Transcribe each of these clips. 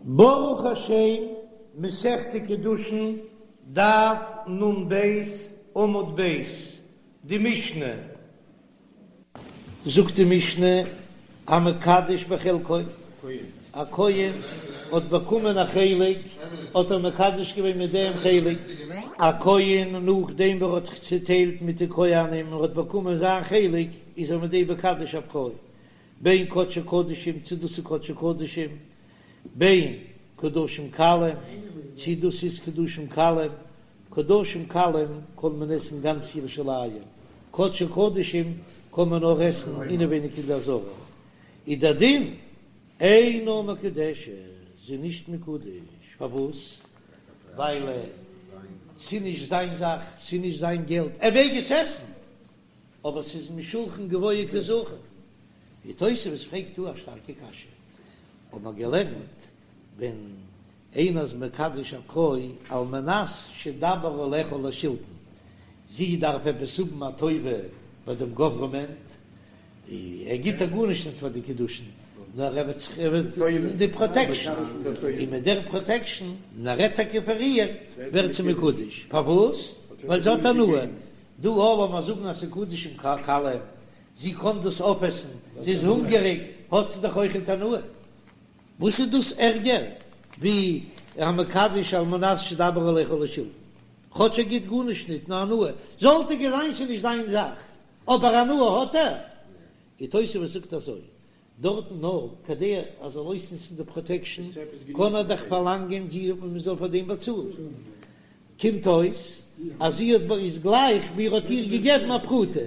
ברוך השם, מסכת קידושין, דף נ"ב, עמוד ב', די משנה. זאגט די משנה, המקדש בחלקו, א כהן האט באקומען א חלק, האט ער מקדש געווען מיט דעם חלק. א כהן נאכדעם ווי ער האט זיך צוטיילט מיט די כהנים און האט באקומען זיין חלק, איז ער מיט דעם מקדש א פרוי, בין קדשי קדשים צו דאס איז קדשי קדשים, בין קדשים קלים צו דאס איז קדשים קלים, קדשים קלים קען מען עסן גאנץ ירושלים, קדשי קדשים קען מען נאר עסן אינעווייניג אין די עזרה, איז דער דין אינה מקודשת, זי איז נישט מקודש, פארוואס? ווייל ס'איז נישט זיין זאך, ס'איז נישט זיין געלט, ער מעג עס עסן, אבער ס'איז משולחן גבוה קא זכו. די תוספות פרעגט דא א שטארקע קשיא, האט מען געלערנט ווען איינער איז מקדש א פרוי על מנת שאדבר עליה לשלטון, זי דארף עפעס האבן א טובה ביי דעם גאווערמענט, ער גיט איר גארנישט נישט פאר די קידושין, נאר ער וועט זיך ער וועט די פראטעקשאן, און מיט דער פראטעקשאן, און ער רעדט טאקע פאר איר, ווערט זי מקודש, פארוואס? ווייל זי האט הנאה, דא לאמיר זאגן אז ס'איז קדשים קלים, זי קען דאס אויפעסן, זי איז הונגעריג, האט זי דאך אויכעט הנאה. וואס איז דאס ערגער ווי המקדש על מנת שאדבר עליה לשלטון? כאטש ער גיט גארנישט ניט נאר הנאה, זאל טאקע זיין ס'איז נישט זיין זאך, אבער הנאה האט ער. די תוספות זאגט אזוי, דארטן נאר כדי ער זאל אויסנוצן די פראטעקשן קען ער דאך פארלאנגען זי מען זאל פאר דעם באצאלן, קומט אויס אז זי האט איז גלייך ווי ער האט איר געגעבן א פרוטה,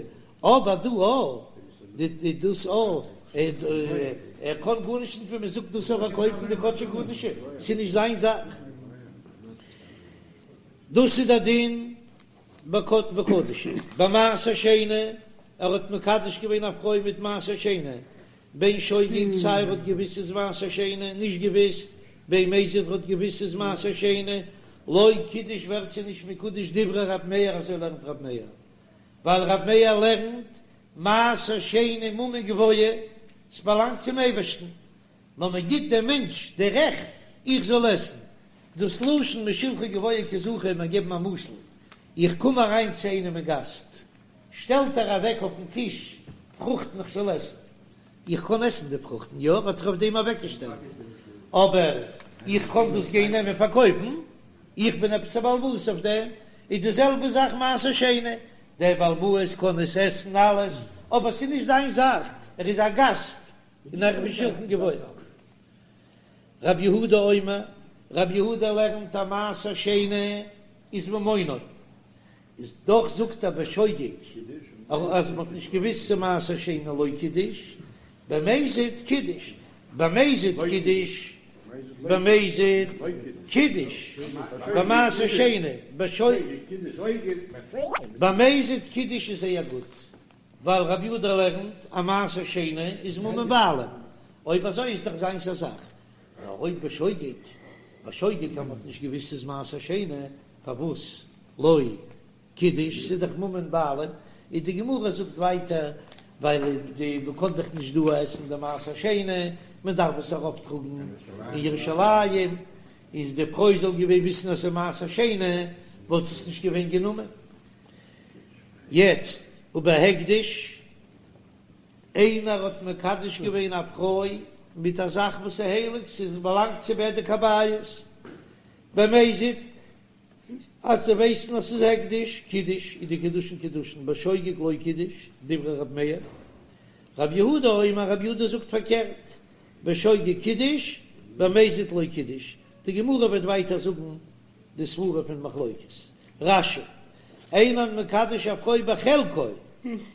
אבער דא א די דאס א ער קען גארנישט נישט ווען מען זאגט דאס אויף פארקויפן די קדשי קדשים, ס'איז נישט זיין זאך, דאס איז די דין בקדשים, במעשר שני, ער האט מקדש געווען א פרוי מיט מעשר שני, בין שוגג סיי ער האט געוויסט ס'איז מעשר שני, נישט געוויסט, בין מזיד ער האט געוויסט ס'איז מעשר שני, לא קידש ווערט זי נישט מקודש דברי רב מאיר אזוי לערנט רב מאיר, ווייל רב מאיר לערנט מעשר שני ממון גבוה, ס'באלאנגט צום אייבערשטן, נאר מען גיט דעם מענטש די רעכט איך זאל עסן, דאס לשון משולחן גבוה קא זכו מיר געבן א משל, איך קום אריין צו איינעם אין גאסט, שטעלט ער אוועק אויפן טיש פרוכטן איך זאל עסן, איך קען עסן די פרוכטן, יא, האט ער אויף דעם אוועקגעשטעלט, אבער איך קען דאס גיין נעמען פארקויפן, איך בין עפעס א בעל הבית אויף דעם, איז די זעלבע זאך מעשר שני, דער בעל הבית קען עס עסן אלעס, אבער ס'איז נישט זיין זאך, ער איז א גאסט און ער איז משולחן גבוה. רב יהודה אומר, רב יהודה לערנט אז מעשר שני איז ממונו, איז דאך זאגט ער בשוגג אז מען האט נישט געוויסט ס'איז מעשר שני לא קידש, במזיד קידש, במזיד קידש, במזיד קידש, במעשר שני, בשוגג, במזיד קידש איז זייער גוט. ווייל רבי יהודה לערנט אז מעשר שני איז ממון בעלים, אויב אזוי איז דאך זיינס א זאך, נאר אויב בשוגג, בשוגג אז מ'האט נישט געוויסט ס'איז מעשר שני, פארוואס לא קידש, ס'איז דאך ממון בעלים, איז די גמרא זאגט ווייטער, ווייל די מ'קען דאך נישט דא עסן די מעשר שני, מען דארף עס ארויפטראגן אין ירושלים, איז די פרוי זאל געווען וויסן אז ס'איז מעשר שני, וואלט עס נישט געווען גענומען. יעצט ובהקדש, איינער האט מקדש געווען א פרוי מיט א זאך וואס איז הייליג, ס'איז באלאנגט צו בדק הבית, במזיד, אז זיי ווייסן אז ס'איז הקדש, קידש, איז די קידושין קידושין, בשוגג לא קידש, דברי רב מאיר, רב יהודה אומר, רב יהודה זאגט פארקערט, בשוגג קידש, במזיד לא קידש, די גמרא וועט ווייטער זאגן די סברה פון מחלוקת רש"י, אין המקדש א פרוי בחלקו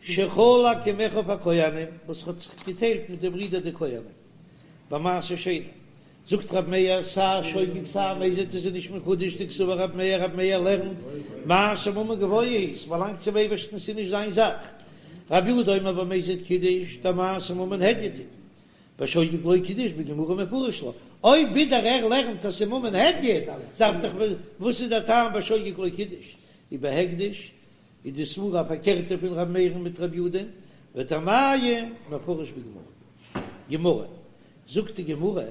שחלק עם אחיו הכהנים וואס האט זיך געטיילט מיט די ברידער די כהנים במעשר שני, זאגט רב מאיר סיי שוגג סיי מזיד איז נישט מקודש דקסבר רב מאיר רב מאיר לערנט מעשר ממון גבוה הוא ס'באלאנגט צום אייבערשטן ס'איז נישט זיין זאך רב יהודה אומר במזיד קידש דמעשר ממון הדיוט הוא בשוגג לא קידש בגמרא מפרש לה, אויב ווידער ער לערנט אז ס'איז ממון הדיוט, דארף דאך וואס איז דער טעם בשוגג לא קידש? ובהקדש איז די סברה א פארקערטע פון ר' מאיר'ן מיט ר' יודא'ן, וטעמייהו מפרש בגמרא. גמרא, זאגט די גמרא.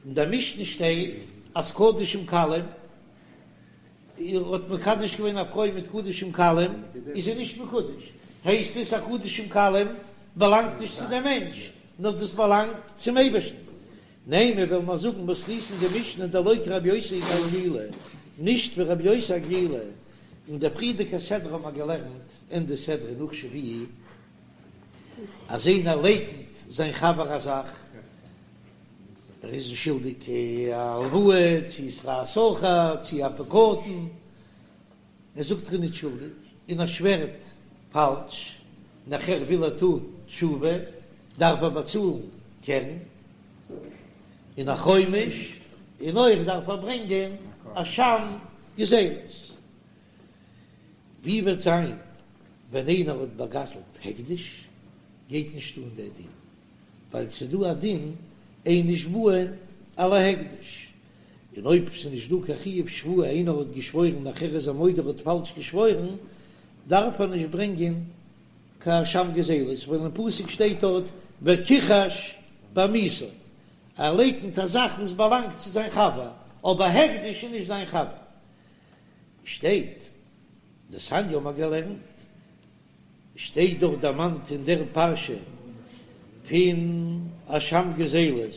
אין דער משנה שטייט אז קדשים קלים, ער האט מקדש געווען א פרוי מיט קדשים קלים, איז זי נישט מקודש, הייסט עס אז קדשים קלים באלאנגט נישט צו דעם מענטש, נאר דאס באלאנגט צום אייבערשטן. נימא וועלן מיר זאגן מתניתין די משנה דלא כרבי יוסי הגלילי, נישט ווי רבי יוסי הגלילי, אין דער פריערדיגער סדרה האבן מיר געלערנט אין די סדרה נאך שביעי, אז איינער לייקנט זיין חבר א זאך, ער איז אים שולדיג א הלוואה, צי שכר שכיר, צי א פקדון, ער זאגט ער איז נישט שולדיג, און ער שווערט פאלש, נאכער וויל ער טון תשובה, דארף ער באצאלן קרן, און א חומש, און אויך דארף ער ברענגען אשם גזילות. ווי וועט זיין ווען איינער האט באגזלט הקדש, גייט נישט אן דער דין, ווייל ס'איז דא א דין אין נשבעין על ההקדש, און אויב ס'איז נישט דא קיין חיוב שבועה, איינער האט געשוואוירן נאכער איז ער מודה ער האט פאלש געשוואוירן, דארף ער נישט ברענגען קיין אשם גזילות, ווייל אין פסוק שטייט דארט וכחש בעמיתו, ער לייקנט א זאך וואס באלאנגט צו זיין חבר, אבער הקדש איז נישט זיין חבר. שטייט, דתניא האבן מיר געלערנט, שטייט דאך דערמאנט אין דער פרשה פון אשם גזילות,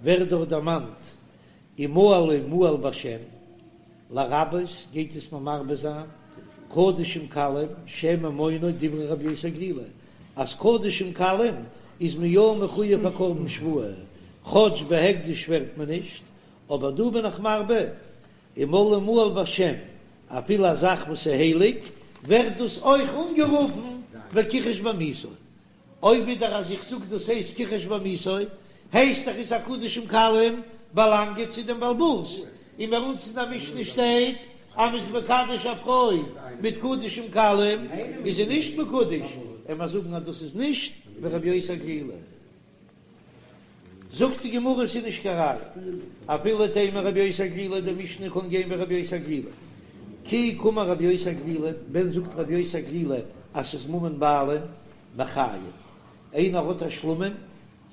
ווערט דאך דערמאנט ומעלו מעל בהשם, לרבות גייט עס מיר מרבה זיין, קדשים קלים שהם ממונו דברי רבי יוסי הגלילי, אז קדשים קלים איז מען יא מחויב א קרבן שבועה, כאטש בהקדש שווערט מען נישט, אבער דא בין איך מרבה ומעלו מעל בהשם, אפילו א זאך וואס איז הייליג, ווערט דאס אויך אנגערופן וכחש בעמיתו. אויב ווידער אז איך זאג דאס הייסט כחש בעמיתו, הייסט דאך עס אז קדשים קלים באלאנגען צו דעם בעל הבית, און ביי אונז אין די משנה שטייט אז מ'איז מקדש א פרוי מיט קדשים קלים איז זי נישט מקודש, עמער זאגן אז דאס איז נישט ווי רבי יוסי הגלילי. זאגט די גמרא ס'איז נישט קיין ראיה, אפילו תימא רבי יוסי הגלילי, די משנה קען גיין ווי רבי יוסי הגלילי, כי קאמר רבי יוסי הגלילי, ווען זאגט רבי יוסי הגלילי אז ס'איז ממון בעלים מחיים, איינער האט א שלמים,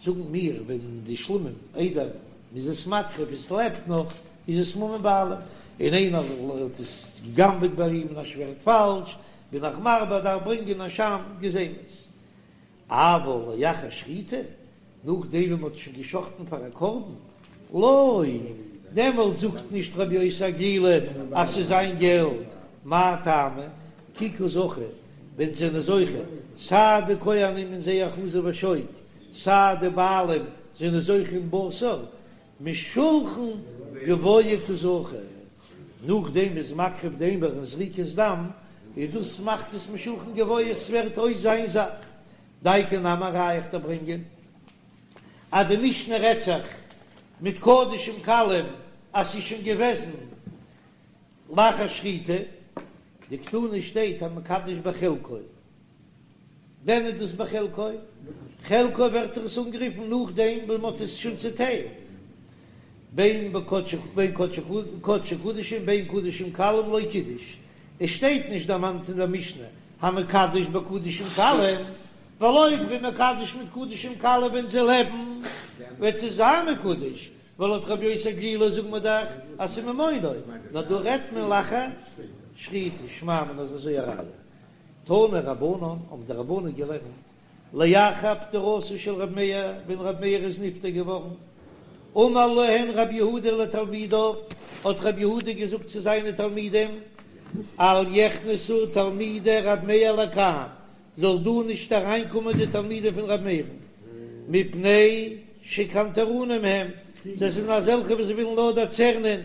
זאגן מיר ווען די שלמים איידער מ'איז עס מקריב עס לעבט נאך איז עס ממון בעלים, און איינער האט עס גע'גנב'עט ביי אים און ער שווערט פאלש, בין איך מרבה דארף ברענגען אשם גזילות. אבל לאחר שחיטה, נאכדעם ווען מ'האט שוין געשחטן פאר א קרבן, לא, דעמאלט זאגט נישט רבי יוסי הגלילי אז ס'איז זיין געלט, מאי טעמא, כי קא זכו, ווען זענען זוכה, סיי די כהנים אין זייער חזה ושוק, סיי די בעלים זענען זוכה אין בשר, משולחן גבוה קא זכו, נאכדעם מ'איז מקריב די אימור און זריקת דם, איז דאס מאכט עס משולחן גבוה, עס ווערט אויס זיין זאך. דייקא נמי א ראיה איך דיר ברענגען אז די משנה רעדט זיך מיט קדשים קלים אז ס'איז שוין געוועזן לאחר שחיטה, דקתני שטייט המקדש בחלקו. ווען איז דאס בחלקו? חלקו ווערט עס אנגערופן נאכדעם ווען מ'האט עס שוין צוטיילט, בין בקדשי בין קדשי קדשים בין קדשים קלים לא קידש, עס שטייט נישט דערמאנט אין דער משנה המקדש בקדשים קלים, ווייל אויב מ'איז מקדש מיט קדשים קלים ווען זיי לעבן וועט עס זיין מקודש, ווייל לויט רבי יוסי הגלילי זאגן מיר דאך אז ס'איז ממונו, נאר דא רעדט מען לאחר שחיטה, שמע מינה איז אזוי א ראיה. תנו רבנן, האבן די רבנן געלערנט, לאחר פטירתו של רבי מאיר, ווען רבי מאיר איז נפטר געווארן, אמר להן רבי יהודה לתלמידיו, האט רבי יהודה געזאגט צו זיינע תלמידים, אל יכנסו תלמידי רבי מאיר לכאן, זאל דא נישט אריינקומען די תלמידים פון רבי מאיר'ן, מפני שקנטרנים הם, זיי זענען אזעלכע וואס ווילן נאר דערצערנען,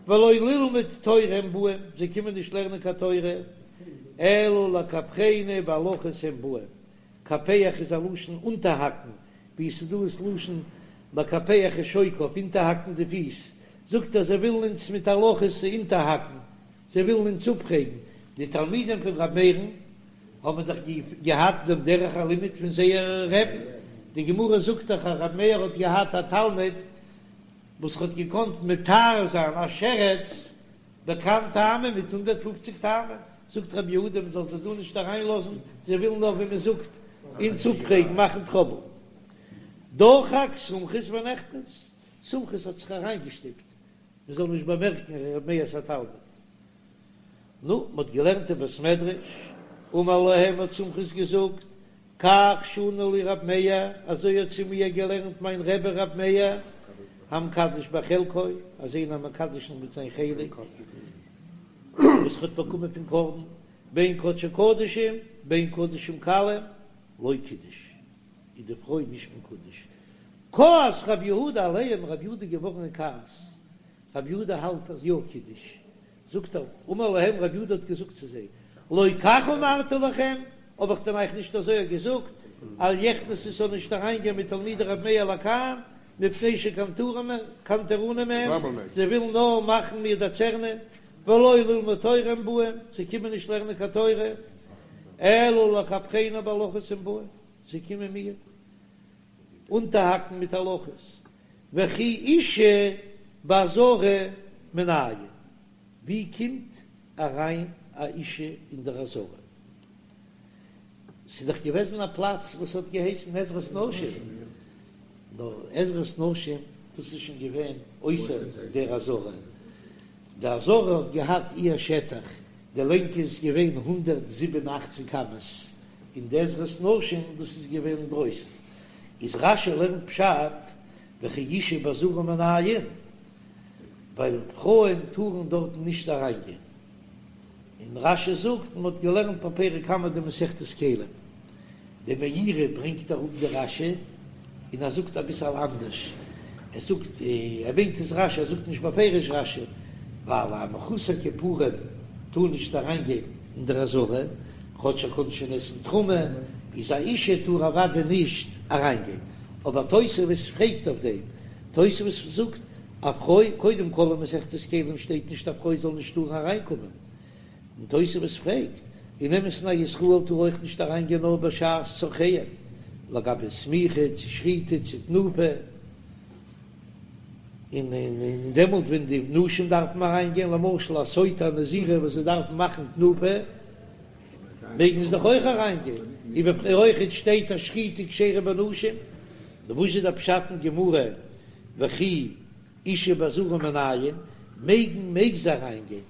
ולא ללמוד תורה הם באים, זיי קומען נישט לערנען קיין תורה, אלא לקפחנו בהלכות הם באים, קפח איז א לשון אונטערהאקן, ווי עס איז דא עס לשון לקפח את שוקיו, אונטערהאקן די פיס, זאגט ער זיי ווילן אונז מיט הלכות אונטערהאקן, זיי ווילן אונז אפפרעגן, די תלמידים פון ר' מאיר'ן האבן דאך געהאט דעם דרך הלימוד פון זייער רבי'ן, די גמרא זאגט דאך אז ר' מאיר האט געהאט א תלמיד וואס האט געקאנט מטהר זיין א שרץ בק"ן טעמים מיט 150 טעמים, זאגט רבי יהודה מען זאל זיי דא נישט אריין לאזן, זיי ווילן נאר ווי מען זאגט אונז אפפרעגן, מאכן טראבל. דחק סומכוס ונכנס. סומכוס האט זיך אריינגעשטופט מען זאל נישט באמערקן ר' מאיר'ס א תלמיד. נו, מען האט געלערנט אין בית מדרש, אמר להם האט סומכוס געזאגט, כך שנה לי ר' מאיר, אזוי האט צו מיר געלערנט מיין רבי ר' מאיר, המקדש בחלקו, אז איינער מקדש מיט זיין חלק וואס ער האט באקומען פון קרבן, בין קדשי קדשים בין קדשים קלים, לא קידש, איז די פרוי נישט מקודש. כעס רב יהודה עליהם, רב יהודה איז געווארן אין כעס, רב יהודה האלט אז יא קידש, זאגט ער, אמר להם רב יהודה האט געזאגט צו זיי, לא כך אמרתי לכם, האב איך דען אייך נישט אזוי געזאגט, אל יכנסו ס'זאל נישט אריין גיין מתלמידי רב מאיר לכאן, מפני שקנטרנים הם, זיי ווילן נאר מאכן מיר דערצערנען, ולא ללמוד תורה הם באים, זיי קומען נישט לערנען קיין תורה, אלא לקפחני בהלכות הם באים, זיי קומען מיר אונטערהאקן מיט הלכות, וכי אשה בעזרה מנין, ווי קומט אריין א אישה אין דער עזרה? ס'איז דאך געוועזן א פלאץ וואס האט געהייסן עזרת נשים, נאר עזרת נשים דאס איז שוין געווען אויסער דער עזרה, די עזרה האט געהאט איר שטח, די לענג איז געווען 187 אמות, און די עזרת נשים דאס איז געווען אינדרויסן, איז רש"י לערנט פשט וכי אשה בעזרה מנין, ווייל פרויען טארן דארטן נישט אריינגיין, און רש"י זאגט מען האט געלערנט בפרק קמא דמסכת כלים, די מאירי ברענגט אראפ די רש"י און ער זאגט אביסעל אנדערש, ער זאגט ער ברענגט עס רש"י ער זאגט נישט בפירוש רש"י, ווייל א מחוסר כיפורים טאר נישט אריין גיין אין דער עזרה, כאטש ער קען שוין עסן תרומה, איז א אישה טאר אוודאי נישט אריין גיין, אבער תוספות פרעגט אויף דעם, תוספות זאגט א פרוי, קודם כל אין מסכת כלים שטייט נישט א פרוי זאל נישט טארן אריין קומען, און תוספות פרעגט, אין אמת'ן א ישראל טאר אויך נישט אריין גיין נאר בשעת צרכיהם, לגבי סמיכה צו שחיטה צו תנופה, און און דעמאלט ווען די נשים דארפן אריין גיין, למשל א סוטה א נזירה וואס זיי דארפן מאכן תנופה, מעגן זיי דאך אויך אריין גיין, און אויכעט שטייט אז שחיטה כשרה בנשים, נו וואס איז דער פשט אין גמרא וכי אשה בעזרה מנין, מעגן מעג זי אריין גיין,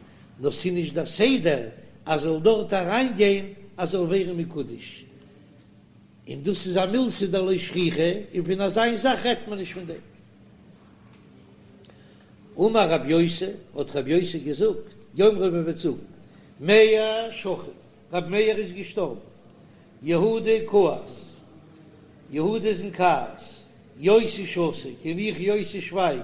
נאר ס'איז נישט דער סדר אז זאל דארט אריין גיין אז זאל ווערן מקודש, און דאס איז א מילתא דלא שכיחא, און פון אזיין זאך רעדט מען נישט פון דעם. אמר רב יוסי, האט רב יוסי געזאגט, יאמרו מ'וועט זאגן, מאיר שכיב, רב מאיר איז געשטארבן, יהודה כעס, יהודה איז אין כעס, יוסי שתיק, און איך יוסי שווייג,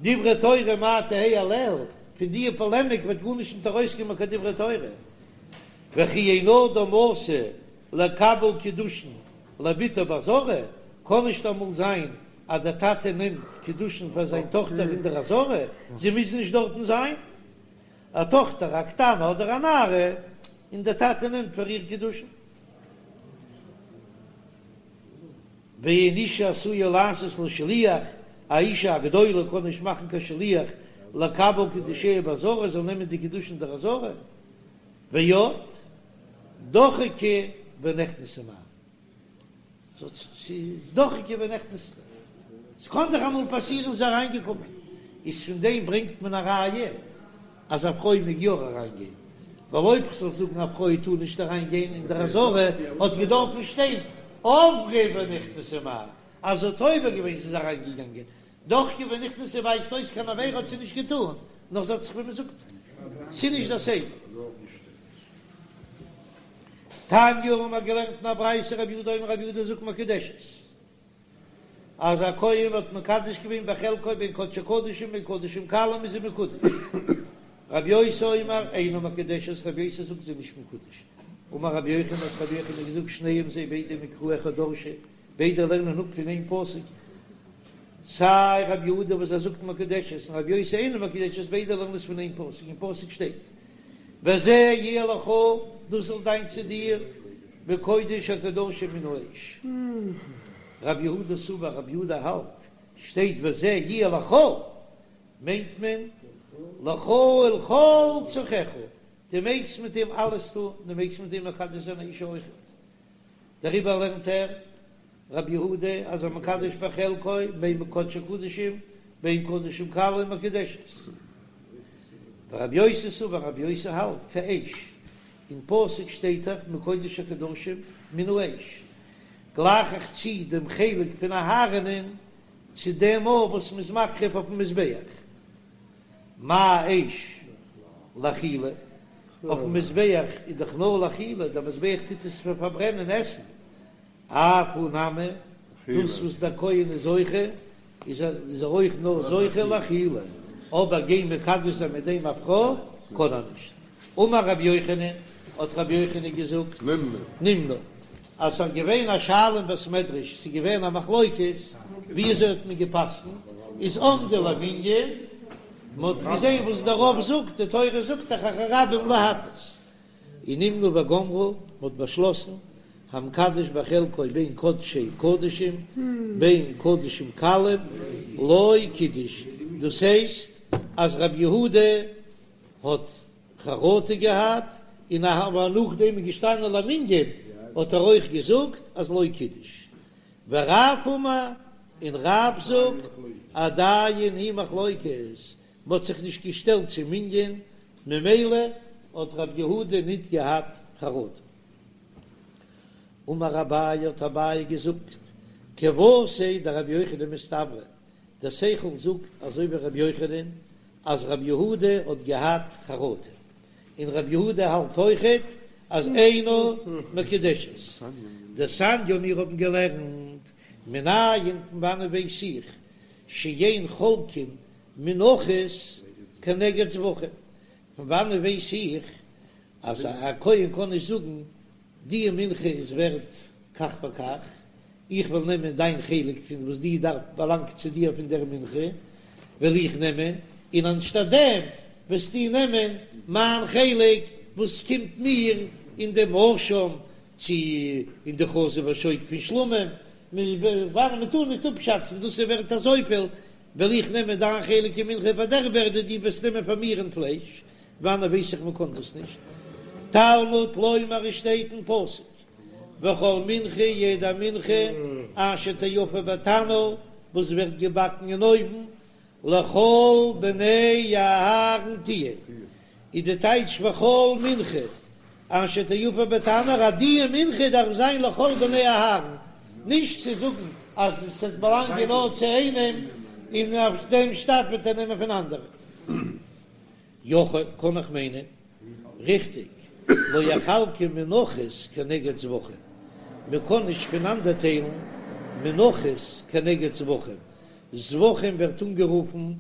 דברי תורה מאי תהא עליה, פון דיע פאלעמיק וועט גארנישט נישט ארויסקומען קיין דברי תורה, וכי אין אדם עשוי לקבל קידושין לבתו בעזרה, קען נישט אמאל זיין אז דער טאטע נעמט קידושין פאר זיין טאכטער אין דער עזרה, זי מוז נישט דארטן זיין, א טאכטער א קטנה אדער א נערה, און דער טאטע נעמט פאר איר קידושין. ואין אישה עשויה לעשות לה שליח, א אישה א גדולה קען נישט מאכן קיין שליח לקבל קידושיה בעזרה, זאל נעמען די קידושין אין דער עזרה, ועוד דחקה ונכנסה מהו. ס'איז דחקה ונכנסה. ס'קען דאך אמאל פאסירן זי איז אריינגעקומען. איז פון דעם ברענגט מען א ראיה אז א פרוי מעג יא אריינגיין. ווייל אויב כ'זאל זאגן א פרוי טאר נישט אריינגיין אין דער עזרה האט געדארפן שטיין עברה ונכנסה מהו, אז זי האט עובר געווען זי איז אריינגעגאנגען. דחקה ונכנסה ווייזט אויס קיין עבירה האט זי נישט געטאן, נאר זי האט זיך ווי מ'זאגט ס'איז נישט דער סדר. תניא האבן מיר געלערנט אין א ברייתא רבי יהודה אומר רבי יהודה זאגט מקודשת אז א כהן האט מקדש געווען בחלקו בין קדשי קדשים בין קדשים קלים איז זי מקודש רבי יוסי אומר אינה מקודשת רבי יוסי זאגט זי איז נישט מקודש אמר רבי יוחנן האט רבי יוחנן געזאגט שניהם זיי ביידע מקרא אחד דרשו ביידע לערנען אפ פון איין פסוק סיי רבי יהודה וואס ער זאגט מקודשת און רבי יוסי אינה מקודשת ביידע לערנען עס פון איין פסוק אין פסוק שטייט וזה יהיה לך, דאס זאל זיין צו דיר, מקודש הקדשים מן האש. רבי יהודה סבר, רבי יהודה האלט, שטייט וזה יהיה לך, מיינט מען לך ולכל צרכיך, דו מעגסט מיט אים אלעס טון, דו מעגסט מיט אים מקדש זיין א אישה אויכעט. דעריבער לערנט ער, רבי יהודה, אז המקדש בחלקו, בין קדשי קדשים, בין קדשים קלים מקודשת. ורבי יוסי סבר רבי יוסי האלט כאש, אין פסוק שטייט דאך מקודש הקדשים מן האש, גלייך איך צו דעם חלק פון אהרן'ען צו דעם אור וואס מ'איז מקריב אויפן מזבח, מה אש לאכילה, אויפן מזבח איז דאך נאר לאכילה, דער מזבח טוט עס פאר פארברענען עסן, אף הוא נמי, דאס וואס דער כהן איז זוכה, איז ער אויך נאר זוכה לאכילה, אבער גיין מקדש זיין מיט דעם א פרוי קען ער נישט. אמר רבי יוחנן, האט רבי יוחנן געזאגט, נמנו, אז ס'איז געווען א שאלה אין בית מדרש, ס'איז געווען א מחלוקת, ווי אזוי האט מען גע'פסק'נט, איז עמדו למנין, מ'האט געזען וואס דער רוב זאגט, די תורה זאגט דאך אחרי רבים להטות, און נמנו וגמרו, מ'האט באשלאסן, המקדש בחלקו בין קדשי קדשים בין קדשים קלים לא קידש, דאס הייסט אז רבי יהודה האט חרטה געהאט, און אבער נאכדעם איז געשטאנען למנין האט ער אויך געזאגט אז לא קידש. ורב אמר, און רב זאגט עדיין היא מחלוקת, מ'האט זיך נישט געשטעלט צום מנין, ממילא האט רב יהודה ניט געהאט חרטה. אמר אביי האט אביי געזאגט, כוותיה דרבי יוחנן מסתברא, דער שכל זאגט אזוי ווי רבי יוחנן אז רבי יהודה האט געהאט חרטה, און רבי יהודה האלט אויכעט אז אינה מקודשת. דתניא מיר האבן געלערנט מנין פון וואנען ווייס איך שאין חולקין מנחות כנגד זבחים, פון וואנען ווייס איך אז א כהן קען נישט זאגן די מנחה איז ווערט כך וכך, איך וועל נעמען דיין חלק פון וואס די דארף באלאנגט צו דיר פון דער מנחה וועל איך נעמען, און אנשטאט דעם וועסטו נעמען מיין חלק וואס קומט מיר אין דעם אשם צו אין די חזה ושוק פון שלמים, ווארום מען טאר נישט אפשאצן דאס איז ווערט אזויפיל, וועל איך נעמען דיין חלק אין מנחה פאר דער ווערדע דו וועסט נעמען פאר מיר אין פלייש, וואנען ווייס איך מען קען דאס נישט? תלמוד לומר עס שטייט אין פסוק וכל מנחה יעדע מנחה אשר תאפה בתנור וואס ווערט געבאקן אין אויוון לכל בני אהרן תהיה איז די טייטש וכל מנחה אשר תאפה בתנור אז די מנחה דארף זיין לכל בני אהרן נישט צו זאגן אז עס וועט באלאנגען נאר צו איינעם און אויף דעם שטאט וועט ער נעמען פון אנדערע. יכול, קען איך מיינען, ריכטיג, לא יחלקו מנחות כנגד זבחים, מען קען נישט פונאנדערטיילן מנחות כנגד זבחים, זבחים ווערט אנגערופן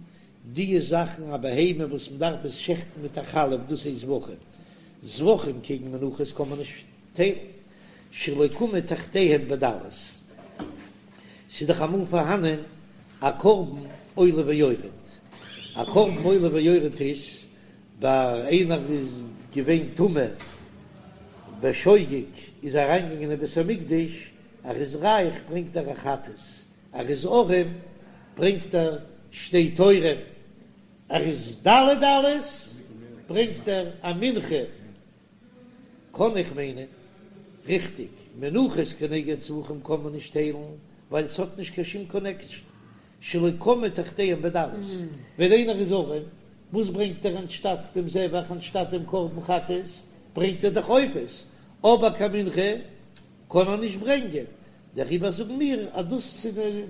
די זאכן א בהמה וואס מען דארף עס שעכטן מיט א חלף דאס הייסט זבחים, זבחים קעגן מנחות קען מען נישט טיילן, שלא קמו תחתיהם בדלות, ס'איז דאך אמאל פארהאנען א קרבן עולה ויורד, א קרבן עולה ויורד איז ביי איינער איז געווען טמא בשוגג איז אריינגעגאנגען אין בית המקדש, ער איז רייך ברענגט ער א חטאת, ער איז ארעם ברענגט ער שתי תורים, ער איז דלי דלות ברענגט ער א מנחה. קאן איך מיינען ריכטיג, מנחות כנגד זבחים קען מען נישט טיילן ווייל ס'האט נישט קיין שום קאנעקשאן, שלא קמו תחתיהם בדלות, ווען איינער איז ארעם, וואס ברענגט ער אנשטאט דעם זבח אנשטאט דעם קרבן חטאת, ברענגט ער דאך עופות, אבער קיין מנחה קען ער נישט ברענגען, דעריבער זאגן מיר אז דאס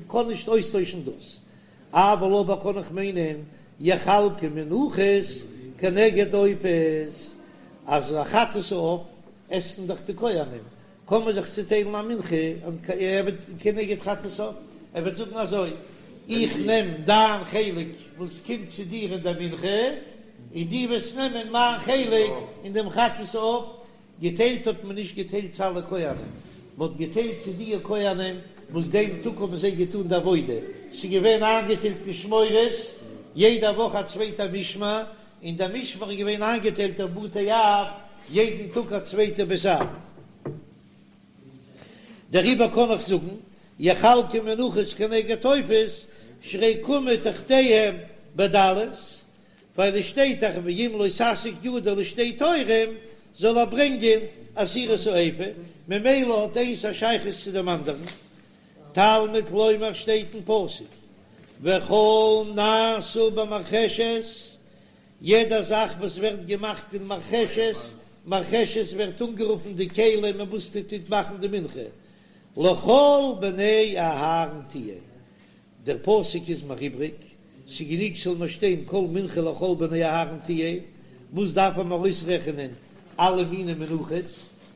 קען נישט אויסטוישן דאס. אבל אבער קען איך מיינען יחלקו מנחות כנגד עופות, אז א חטאת העוף עסן דאך די כהנים, קען מען זיך צוטיילן א מנחה כנגד חטאת העוף, ער וועט זאגן אזוי, איך נעם דיין חלק וואס קומט צו דיר אין דער מנחה, און דו וועסט נעמען מיין חלק אין דעם חטאת העוף, געטיילט האט מען נישט געטיילט צו אלע כהנים, מען האט געטיילט צו די כהנים וואס דעם טאג האבן זיי געטאן די עבודה, ס'איז געווען איינגעטיילט משמרות, יעדע וואך א צווייטע משמר, און דער משמר איז געווען איינגעטיילט אויף בתי אב, יעדן טאג א צווייטע בית אב. דעריבער קען איך זאגן, יחלקו מנחות כנגד עופות, שהרי קמו תחתיהם בדלות, ווייל עס שטייט דאך ואם לא תשיג ידו לשתי תורים זאל ער ברענגען עשירית האיפה, ממילא האט איינס א שייכות צו דעם אנדערן. תלמוד לומר שטייט אין פסוק. וכל נעשה במרחשת, יעדע זאך וואס ווערט געמאכט אין מרחשת, מרחשת ווערט אנגערופן די כלי מיט וואס מ'טוט מאכן די מנחה, לכל בני אהרן תהיה, דער פסוק איז מיר איבריג, ס'גענוג ס'זאל מיר שטיין כל מנחה לכל בני אהרן תהיה, וואס דארף מען אויסרעכענען אלע מיני מנחות,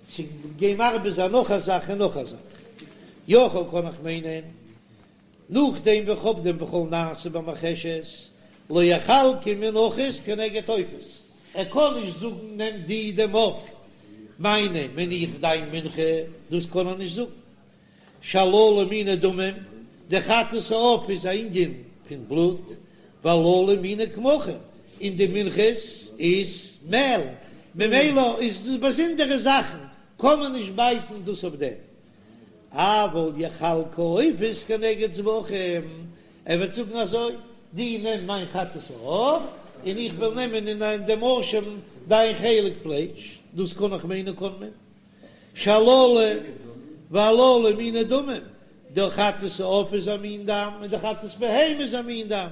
צו גיין מרבה זיין נאך א זאך און נאך א זאך, יכול קען איך מיינען נאכדעם ווי כ'האב דעם וכל נעשה במרחשת לא יחלקו מנחות כנגד עופות, ער קען נישט זאגן נעם דו דעם עוף מיינעם און איך דיין מנחה, דאס קען ער נישט זאגן. שהללו מיני דמים, די חטאת העוף איז א ענין פון בלוט, והללו מיני קמחים, און די מנחות איז מעל, ממילא איז דאס באזונדערע זאכן, קען מען נישט בייטן דאס אויף דעם. אבל יחלקו עופות כנגד זבחים, ער וועט זאגן אזוי, דו נעם מיין חטאת העוף, און איך וועל נעמען אין דעם אשם דיין חלק פלייש, דאס קען איך מיינען קען מען. שהללו והללו מיני דמים, די חטאת העוף איז א מין דם און די חטאת בהמה איז א מין דם,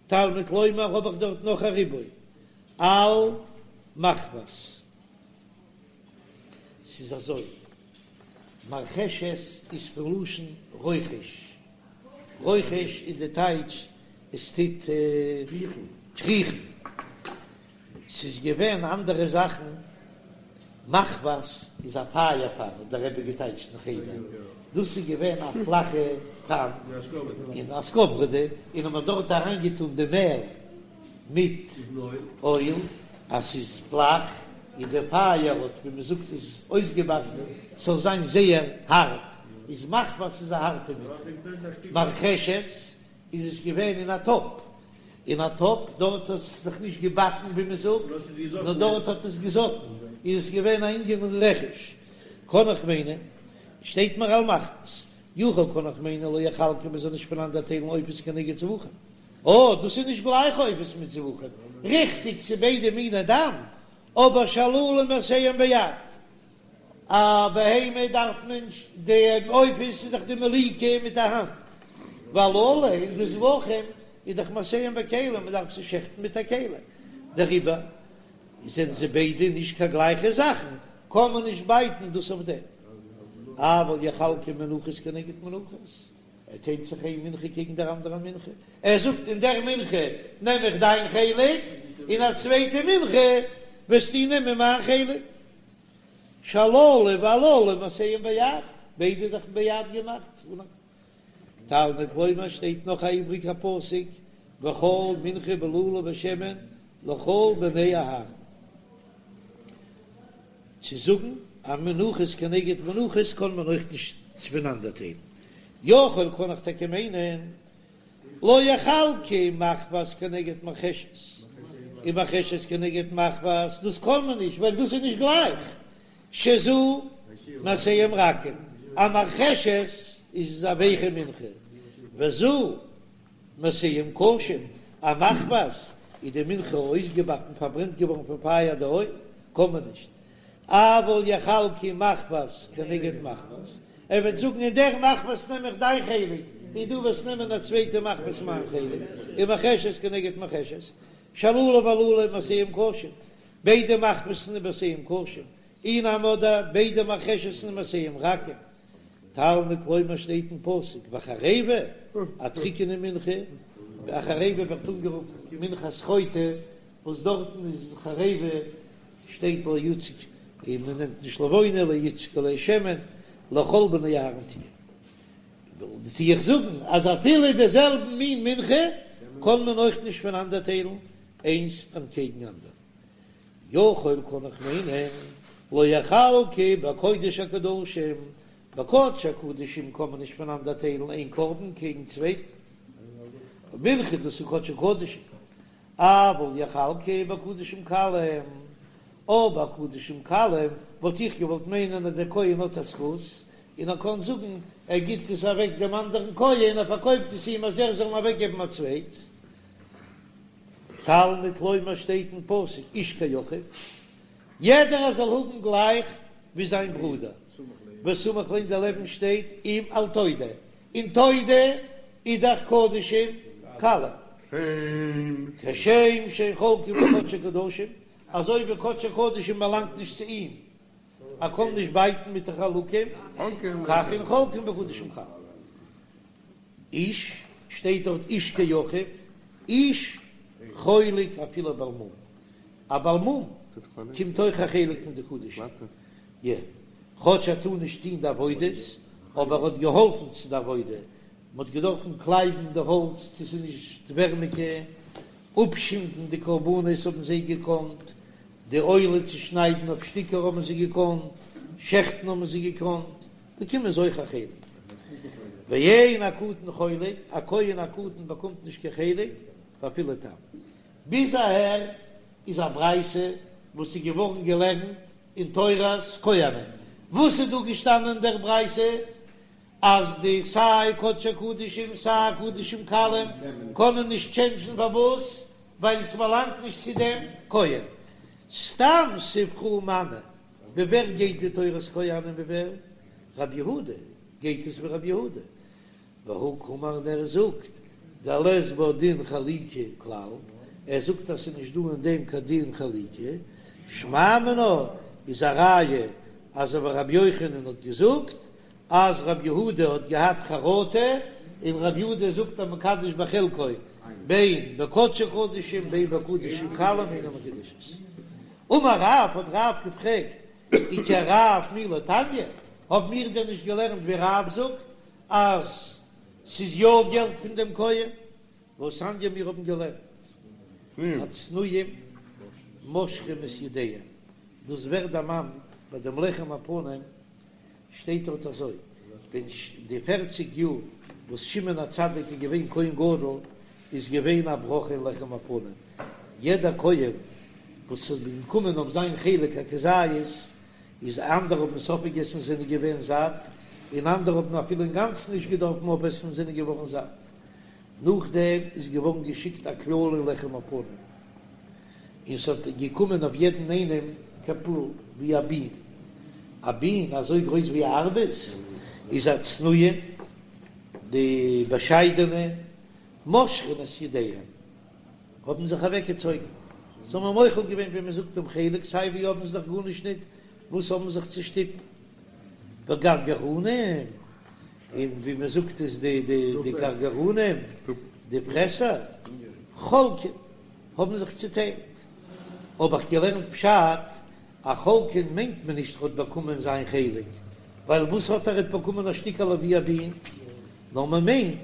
תלמוד לומר האב איך דארט נאך א ריבוי על מחבת. ס'איז אזוי, מרחשת איז פון לשון רוחש, רוחש איז די טייטש עס טוט קריכן. ס'איז געווען אנדערע זאכן, מחבת איז א פייער פאן האט דער רבי געטייטשט אין חדר, דאס איז געווען א פלאכע פאן אין א סקאוועראדע, און האט מען דארט אריינגעטאן די מעל מיט אויל, אז ס'איז פלאך און די פייער האט ווי מ'זאגט עס אויסגעבאקן ס'זאל זיין זייער הארט, איז מחבת איז א הארטע מנחה, מרחשת איז עס געווען אין א טאפ, אין א טאפ, דארט האט עס זיך נישט געבאקן ווי מען זאגט, נאר דארט האט עס געזאטן, איז עס געווען א ענין פון רכש, קען איך מיינען, שטייט מיר על מחבת, יכול קען איך מיינען לא יחלקו מען זאל נישט פונאנדערטיילן עופות כנגד זבחים, אה דאס איז נישט גלייך עופות מיט זבחים, ריכטיג ס'איז ביידע מיני דם, אבער שהללו מעשיהם ביד, א בהמה דארף מען די עופות איז דאך די מליקה מיט א האנט, והללו און די זבחים איז דאך מעשיהם בכלי מען דארף זיי שעכטן מיט א כלי, דעריבער זענען זיי ביידע נישט קיין גלייכע זאכן, קען מען נישט בייטן דאס אויף דעם. אבל יחלקו מנחות כנגד מנחות, ער טיילט זיך איין מנחה קעגן דער אנדערער מנחה, ער זאגט אין דער מנחה נעם איך דיין חלק, אין א צווייטע מנחה וועסטו נעמען מיין חלק. שהללו והללו מעשיהם ביד, ביידע זאכן ביד געמאכט. תלמוד לומר שטייט נאך א איבריגע פסוק, וכל מנחה בלולה בשמן לכל בני אהרן. צו זאגן אז מנחות כנגד מנחות קען מען אויך נישט פונאנדערטיילן. יכול קען איך טאקע מיינען לא יחלקו מחבת כנגד מרחשת, און מרחשת כנגד מחבת, דאס קען מען נישט ווייל דאס איז נישט גלייך, שזו מעשיהם רכים, א מרחשת איז א ווייכע מנחה, וזו מעשיהם קשים, א מחבת איז די מנחה אויסגעבאקן פארברענט געווארן פון פייער די אויל, קען מען נישט. אבל יחלקו מחבת כנגד מחבת, ער וועט זאגן אין דער מחבת נעם איך דיין חלק, און דו וועסט נעמען א צווייטע מחבת מיין חלק, ומרחשת כנגד מרחשת, שהללו והללו מעשיהם קשים, ביידע מחבת'ן איז מעשיהם קשים, אי נמי אדער ביידע מרחשת'ן איז מעשיהם רכים, תלמוד לומר שטייט אין פסוק וחרבה, א טריקענע מנחה, א חרבה ווערט אנגערופן מנחת חוטא, וואס דארטן איז חרבה שטייט לא יוצק און מען נעמט נישט לבונה לא יוצק עליה שמן לכל בני אהרן תהיה. טו איך זאגן אז אפילו די זעלבן מין מנחה קען מען אויך נישט פונאנדערטיילן איינס אנטקעגן אנדערן. יכול קען איך מיינען לא יחלקו בקודש הקדשים, בקודש הקדשים קען מען נישט פונאנדערטיילן איין קרבן קעגן צווייטן, מנחה דאס איז קודש הקדשים, אבל יחלקו בקדשים קלים, אבער קדשים קלים וואלט איך געוואלט מיינען אז דער כהן האט א זכות, און ער קען זאגן ער גיט עס אוועק דעם אנדערן כהן, ער פארקויפט עס אים אז ער זאל אים אוועקגעבן א צווייטס. תלמוד לומר שטייט אין פסוק איש כאחיו, יעדער זאל האבן גלייך ווי זיין ברודער, וסמיך ליה דערלעבן שטייט אם על תודה, און תודה. איז דאך קדשים קלים. כשם שאין חולקין בקדשי קדשים, אזוי ווי קדשי קדשים באלאנגט נישט צו אים, ער קען נישט בייטן מיט די חלקים, כך אין חולקין בקדשים קלים. איש, שטייט דארט איש כאחיו, איש חולק אפילו בעל מום, א בעל מום קומט אויך א חלק פון די קדשים, יא, כאטש ער טאר נישט טון די עבודות, אבער ער האט געהאלפן צו די עבודה, מען האט געדארפן קלייבן די האלץ צו ס'איז נישט ווערמיגע, אפשינדן די קרבנות האבן זיי געקאנט, די עולה צושניידן אויף שטיקער האבן זיי געקאנט, שעכטן האבן זיי געקאנט, באקומען זיי אויך א חלק. ואין הקטן חולק, א כהן א קטן באקומט נישט קיין חלק, ואפילו תם. ביז אהער איז א ברייתא וואס איז געווארן געלערנט אין תורת כהנים. וואס איז דא געשטאנען אין דער ברייתא? אז די סיי קדשי קדשים סיי קדשים קלים קענען נישט טשענדזשן פארוואס? ווייל עס באלאנגט נישט צו דעם כהן. סתם ספרא מני, ווי ווער גייט די תורת כהנים ווי ווער? רבי יהודה, גייט עס ווי רבי יהודה. והא קאמר און ער זאגט דלית בה דין חליקה כלל, ער זאגט אז ס'איז נישט דא אין דעם קיין דין חליקה, שמע מינה איז א ראיה אזוי ווי רבי יוחנן האט געזאגט אז רבי יהודה האט געהאט חרטה, און רבי יהודה זאגט המקדש בחלקו בין בקדשי קדשים בין בקדשים קלים אינה מקודשת. אמר רב, האט רב געפרעגט, וכרב מי לא תניא, האבן מיר דען נישט געלערנט ווי רב זאגט אז ס'איז יא געלט פון דעם כהן? והתניא מיר האבן געלערנט הצנועים מושכים את ידיהם, דאס ווערט דערמאנט ביי דעם לחם הפנים שטייט דארט אזוי, ווען די פערציג יאר וואס שמעון הצדיק איז געווען כהן גדול איז געווען א ברכה אין לחם הפנים, יעדער כהן וואס איז געקומען אויף זיין חלק א כזית, איז אנדערע האבן עס אויפגעגעסן זענען געווען זאט, און אנדערע האבן אפילו אינגאנצן נישט געדארפן אויפעסן זענען געווארן זאט. נאכדעם איז געווארן געשיקט א קללה אין לחם הפנים, און ס'האט געקומען אויף יעדן איינעם כפול ווי א בין, א בין אזוי גרויס ווי א ארבעס, איז הצנועים, די באשיידענע, מושכין את ידיהם, האבן זיך אוועקגעצויגן, זיי האבן מוחל געווען ווי מען זאגט דעם חלק, סיי ווי האבן זיי דאך גארנישט ניט וואס האבן זיך צו שטופן, וגרגרנים, און ווי מען זאגט איז די די גרגרנים, די פרעסער, חולקין, האבן זיך צוטיילט. האב איך געלערנט פשט, אז חולקין מיינט מען נישט ער האט באקומען זיין חלק, ווייל וואס האט ער האט באקומען א שטיקעלע ווי א בין, נאר מען מיינט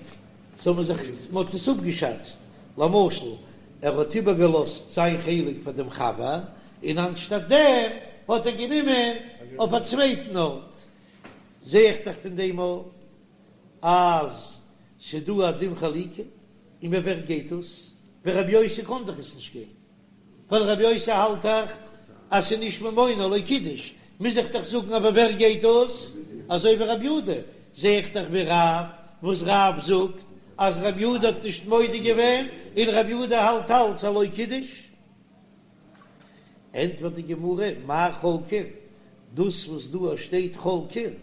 זיי האבן זיך, מען האט עס אפגעשאצט, למשל ער האט איבערגעלאזט זיין חלק פאר דעם חבר, און אנשטאט דעם האט ער גענומען אויף א צווייטן ארט, זע איך דאך פון דעם אויך אז ס'דא א דין חליקה, און ווי ווער גייט עס? ווי רבי יוסי קען דאך עס נישט גיין, ווייל רבי יוסי האלט דאך אז ס'איז נישט ממונו לא קידש, מוז איך דאך זאגן אבער ווער גייט דאס? אזוי ווי רבי יהודה, זע איך דאך ווי רב, וואס רב זאגט אז רבי יהודה האט נישט מודה געווען, און רבי יהודה האלט אלץ אז לא קידש. ענטפערט די גמרא, מאי חולקין, דאס וואס דא שטייט חולקין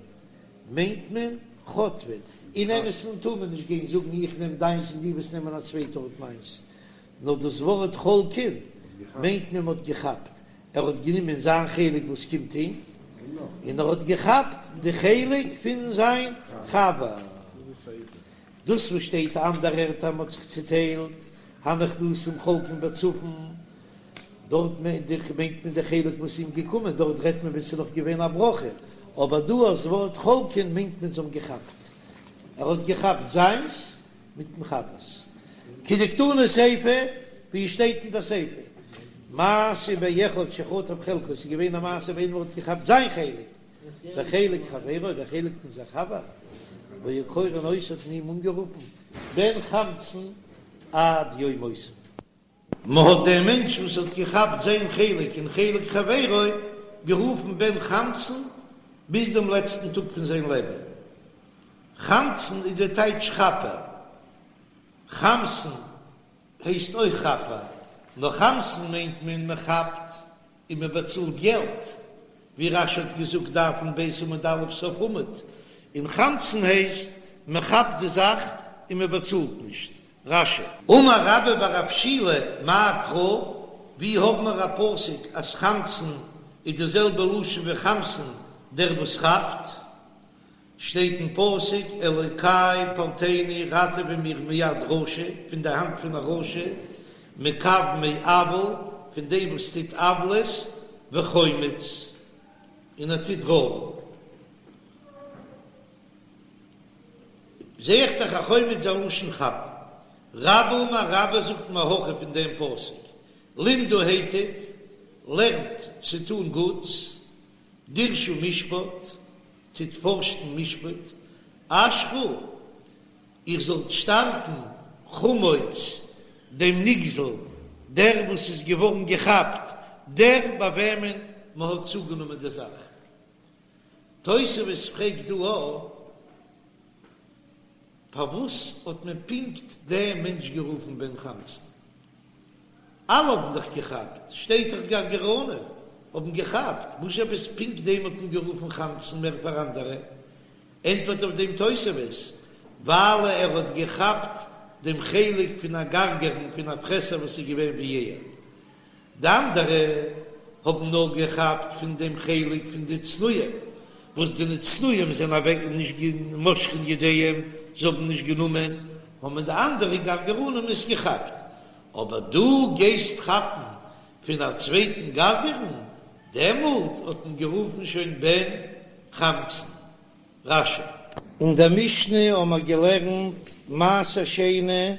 מיינט מען חוטפין, אין אמת'ן טאר מען נישט גיין זאגן איך נעם דיינס און דו וועסט נעמען א צווייטע האט מיינס, נאר דאס ווארט חולקין מיינט מען מ'האט געכאפט, ער האט גענומען זיין חלק וואס קומט אים, און ער האט געכאפט די חלק פון זיין חבר. דאס וואס שטייט אנדערע ערטער מ'האט זיך צוטיילט, הנכנסים חולקין בצפון, דארט מיינט מען די חלק וואס איז אים געקומען, דארט רעדט מען ווען ס'איז נאך געווען א ברכה, אבער דא דאס ווארט חולקין מיינט מען זיי האבן געכאפט, ער האט געכאפט זיינס מיטן חבר'ס. כדקתני סיפא, ווי עס שטייט אין די סיפא, מעשה באחד שחטף חלקו, ס'איז געווען א מעשה ווען איינער האט געכאפט זיין חלק, וחלק חברו, דער חלק פון זיין חבר, והיו קורין אותו האט מען אים אנגערופן בן חמצן עד יום מותו. מען האט דעם מענטש וואס האט געכאפט זיין חלק און חלק חברו גערופן בן חמצן ביז דעם לעצטן טאג פון זיין לעבן. חמצן איז דער טייטש כאפער. חמסן הייסט אויך כאפער, נאר חמסן מיינט מען מען כאפט און מען באצאלט געלט, ווי רש"י האט געזאגט דף נ"ב עמוד א' סוף עמוד, און חמצן הייסט מען כאפט די זאך. און מען באצאלט נישט. רש"י. אמר רבה בר רב שילא מאי קרא, ווי האבן מיר א פסוק אז חמצן איז די זעלבע לשון ווי חמסן דער וואס כאפט? שטייט אין פסוק אלוקי פלטני ראטעווע מיר מיד רשע, פון די האנט פון א רשע, מקב מעול, פון דעם וואס טוט עוולות, וחומץ, און ער טוט רויבן. זע איך דאך אז חומץ איז א לשון כאפן. רבה אמר רבה זאגט מהכא פון דעם פסוק, למדו היטב, לערנט צו טון גוטס, דרשו משפט, טוט פארשן משפט, אשרו, איר זאלט שטארקן חמוץ דעם נגזל, דער וואס איז געווארן געכאפט, דער ביי וועמען מען האט צוגענומען די זאך. תוספות פרעגט דא א, פארוואס האט מען פונקט דעם מענטש גערופן בן חמצן? אלע האבן דאך געכאפט, שטייט דאך גרגרנים האבן געכאפט, וואס עפעס פונקט דעם האט מען גערופן חמצן מער פאר אנדערע? ענטפערט אויף דעם תוספות, ווייל ער האט געכאפט דעם חלק פון א גרגרן פון א פרעסער וואס איז געווען ווי ער, די אנדערע האבן נאר געכאפט פון דעם חלק פון די צנועים, וואס די צנועים זענען אוועק נישט מושכין ידיהם, זיי האבן נישט גענומען, האבן די אנדערע גרגרנים עס געכאפט, אבער דו גייסט כאפן פון א צווייטן גרגרן, דעמאלט האט מען גערופן שוין בן חמצן. רש"י. אין דער משנה האבן מיר געלערנט מעשר שני,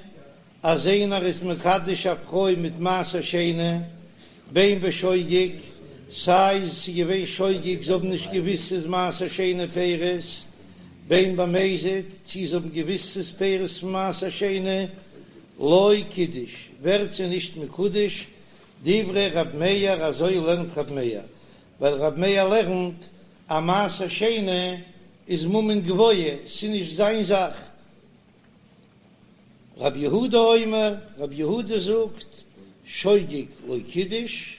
אז איינער איז מקדש א פרוי מיט מעשר שני, בין בשוגג, סיי ס'איז געווען שוגג, זיי האבן נישט געוויסט ס'איז מעשר שני פירות, בין במזיד, צי זיי האבן געוויסט ס'איז פירות פון מעשר שני, לא קידש, ווערט זי נישט מקודש, דברי ר' מאיר, אזוי לערנט ר' מאיר, ווייל ר' מאיר לערנט אז מעשר שני איז ממון גבוה, ס'איז נישט זיין זאך. רב יהודה אומר, רב יהודה זאגט, שוגג לא קידש,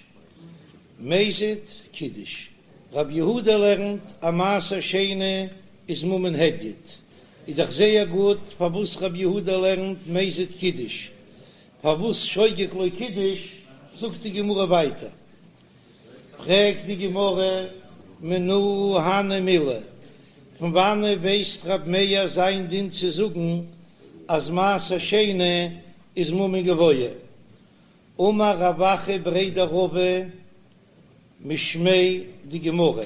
מזיד קידש. רב יהודה לערנט אז מעשר שני איז ממון הדיוט, איז דאך זייער גוט פארוואס רב יהודה לערנט מזיד קידש, פארוואס שוגג לא קידש, זאגט די גמרא ווייטער. פרעגט די גמרא, מנא הני מילי, פון וואנעט ווייסט רב מאיר זיין דין צו זאגן אז מעשר שני איז ממון גבוה? אמר רב אחא בריה דרבא משמיה דגמרא,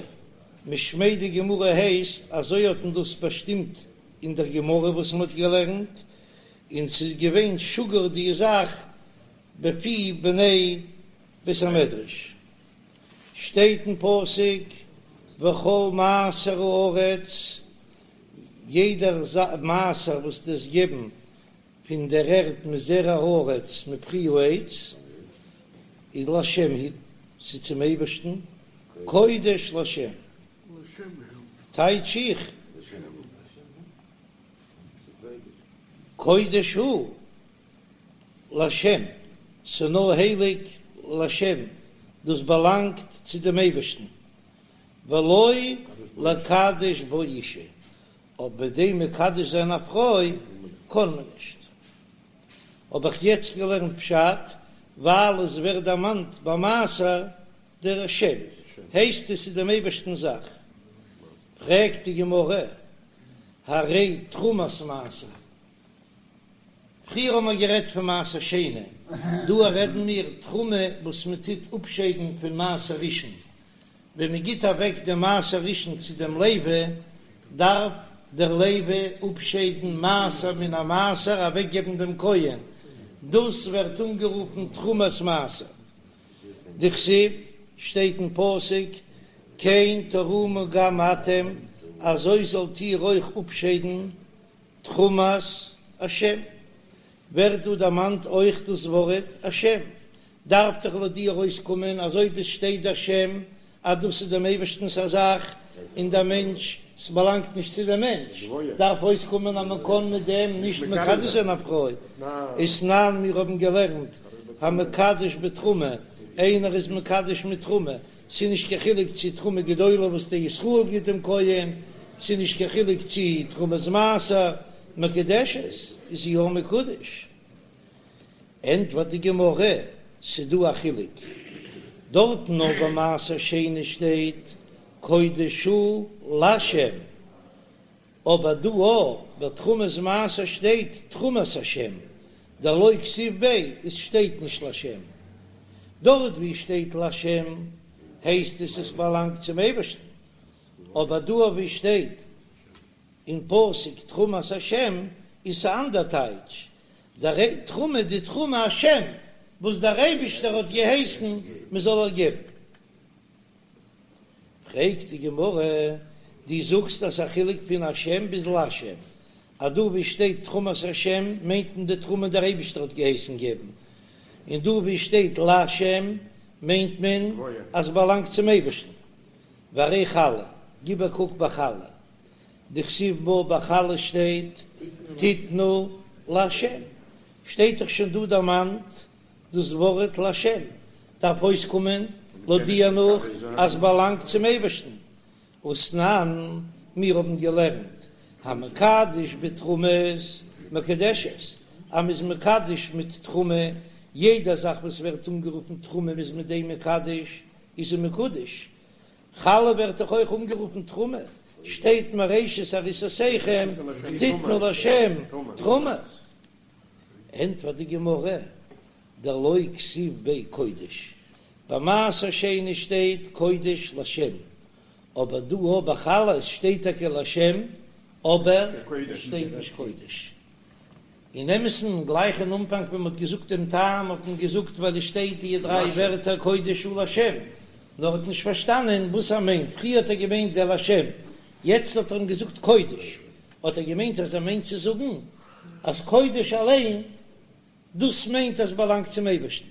משמיה דגמרא הייסט אזוי האט מען דאס באשטימט אין דער גמרא וואס מען האט געלערנט, און ס'איז געווען שגור די זאך בפי בני בית המדרש שטייט אין פסוק וכל מעשר הארץ, יעדער מעשר וואס דו וועסט געבן פון דער ערד מזרע הארץ מפרי העץ, איז לשם הוא, ס'איז צום אייבערשטן, קודש לשם, טייטש איך, קודש הוא. לשם, ס'נאר הייליג לשם, דאס באלאנגט צו דעם אייבערשטן, ולא לקדש בו אשה, אבער מיט דעם מקדש זיין א פרוי קען מען נישט. האב איך יעצט געלערנט פשט, ווייל עס ווערט דערמאנט ביי מעשר דער שם, הייסט עס איז דעם אייבערשטנ'ס זאך. פרעגט די גמרא, הרי תרומת מעשר, פריער האבן מיר גערעדט פון מעשר שני, דא רעדן מיר תרומה וואס מען טוט אפשיידן פון מעשר ראשון, ווען מען גיט אוועק דעם מעשר ראשון צו דעם לוי, דארף דער לוי אפשיידן מעשר מן המעשר אוועקגעבן דעם כהן, דאס ווערט אנגערופן תרומת מעשר. דכתיב, שטייט אין פסוק, כן תרימו גם אתם, אזוי זאלט איר אויך אפשיידן תרומת השם, ווערט דא דערמאנט אויך דאס ווארט השם, דארף דאך לויט דיר אויסקומען אז אויב עס שטייט השם אז דאס איז דעם אייבערשטנ'ס א זאך און דער מענטש, ס'באלאנגט נישט צו דעם מענטש, דארף אויסקומען אז מען קען מיט דעם נישט מקדש זיין א פרוי. ותנן, מיר האבן געלערנט המקדש בתרומה, איינער איז מקדש מיט תרומה, ס'איז נישט קיין חילוק צי תרומה גדולה וואס דער ישראל גיט דעם כהן, ס'איז נישט קיין חילוק צי תרומת מעשר מקודשת. איז זי יא מקודש. ענטפערט די גמרא, ס'דא א חילוק, דארטן נאר ביי מעשר שני שטייט קודש הוא לשם, אבער דא אויך ביי תרומת מעשר שטייט תרומת השם, דלא כתיב ביה עס שטייט נישט לשם. דארט ווי שטייט לשם הייסט עס עס באלאנגט צום אייבערשטן, אבער דא ווי שטייט אין פסוק תרומת השם איז א אנדער טייטש, דער תרומה די תרומה השם וואס דער אייבישטער האט געהייסן מען זאל איר געבן. פרעגט די גמרא, דו זאגסט אז ס'א חילוק פון השם ביז לשם, אז דא ווי שטייט תרומת השם מיינט מען די תרומה דער אייבישטער האט געהייסן געבן, און דא ווי שטייט לשם מיינט מען אז ס'באלאנגט צום אייבישטן. והרי חלה, גיב א קוק ביי חלה, דכתיב בה ביי חלה שטייט תתנו להשם, שטייט דאך שוין דא דערמאנט דאס ווארט לשם, דארף אויסקומען לויט דיר נאך אז באלאנגט צום אייבערשטן, ותנן, מיר האבן געלערנט המקדש בתרומות מקודשת, אז מ'איז מקדש מיט תרומה, יעדע זאך וואס ווערט אנגערופן תרומה מ'איז מיט דעם מקדש, איז זי מקודש, חלה ווערט דאך אויך אנגערופן תרומה, שטייט מראשית עריסותיכם תתנו לשם תרומה. ענטפערט די גמרא, דלא כתיב ביה קודש, ביי מעשר שני שטייט קודש לשם, אבער דא אויך ביי חלה שטייט טאקע לשם אבער שטייט נישט קודש. אין אמת'ן, גלייך אין אנפאנג ווען מ'האט געזאגט דעם טעם האט מען געזאגט ווייל עס שטייט די דריי ווערטער קודש הוא לשם, נאר האט נישט פארשטאנען וואס ער מיינט, פריער האט ער געמיינט דער לשם, יעצט האט ער אים געזאגט קודש, האט ער געמיינט אז ער מיינט צו זאגן אז קודש אליין דאס מיינט אז באלאנגט צום אייבערשטן.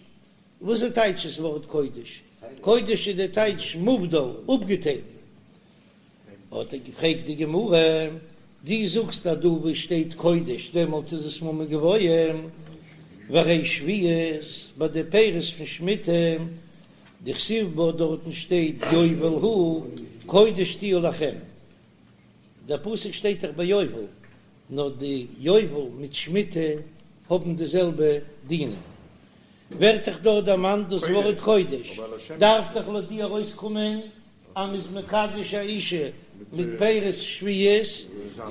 וואס איז טייטש דאס ווארט קודש? קודש איז די טייטש מובדל, אפגעטיילט. האט ער געפרעגט די גמרא, דו זאגסט אז דא וואו שטייט קודש דעמאלט איז עס ממון גבוה, והרי שביעית ביי די פירות פון שמיטה, דכתיב בה דארטן שטייט יובל הוא קודש תהיה לכם, דער פסוק שטייט דאך ביי יובל, נאר די יובל מיט שמיטה האבן די זעלבע דינים, ווערט דאך דארט דערמאנט דאס ווארט קודש, דארף דאך לויט דיר ארויסקומען אז מ'איז מקדש א אישה מיט פירות שביעית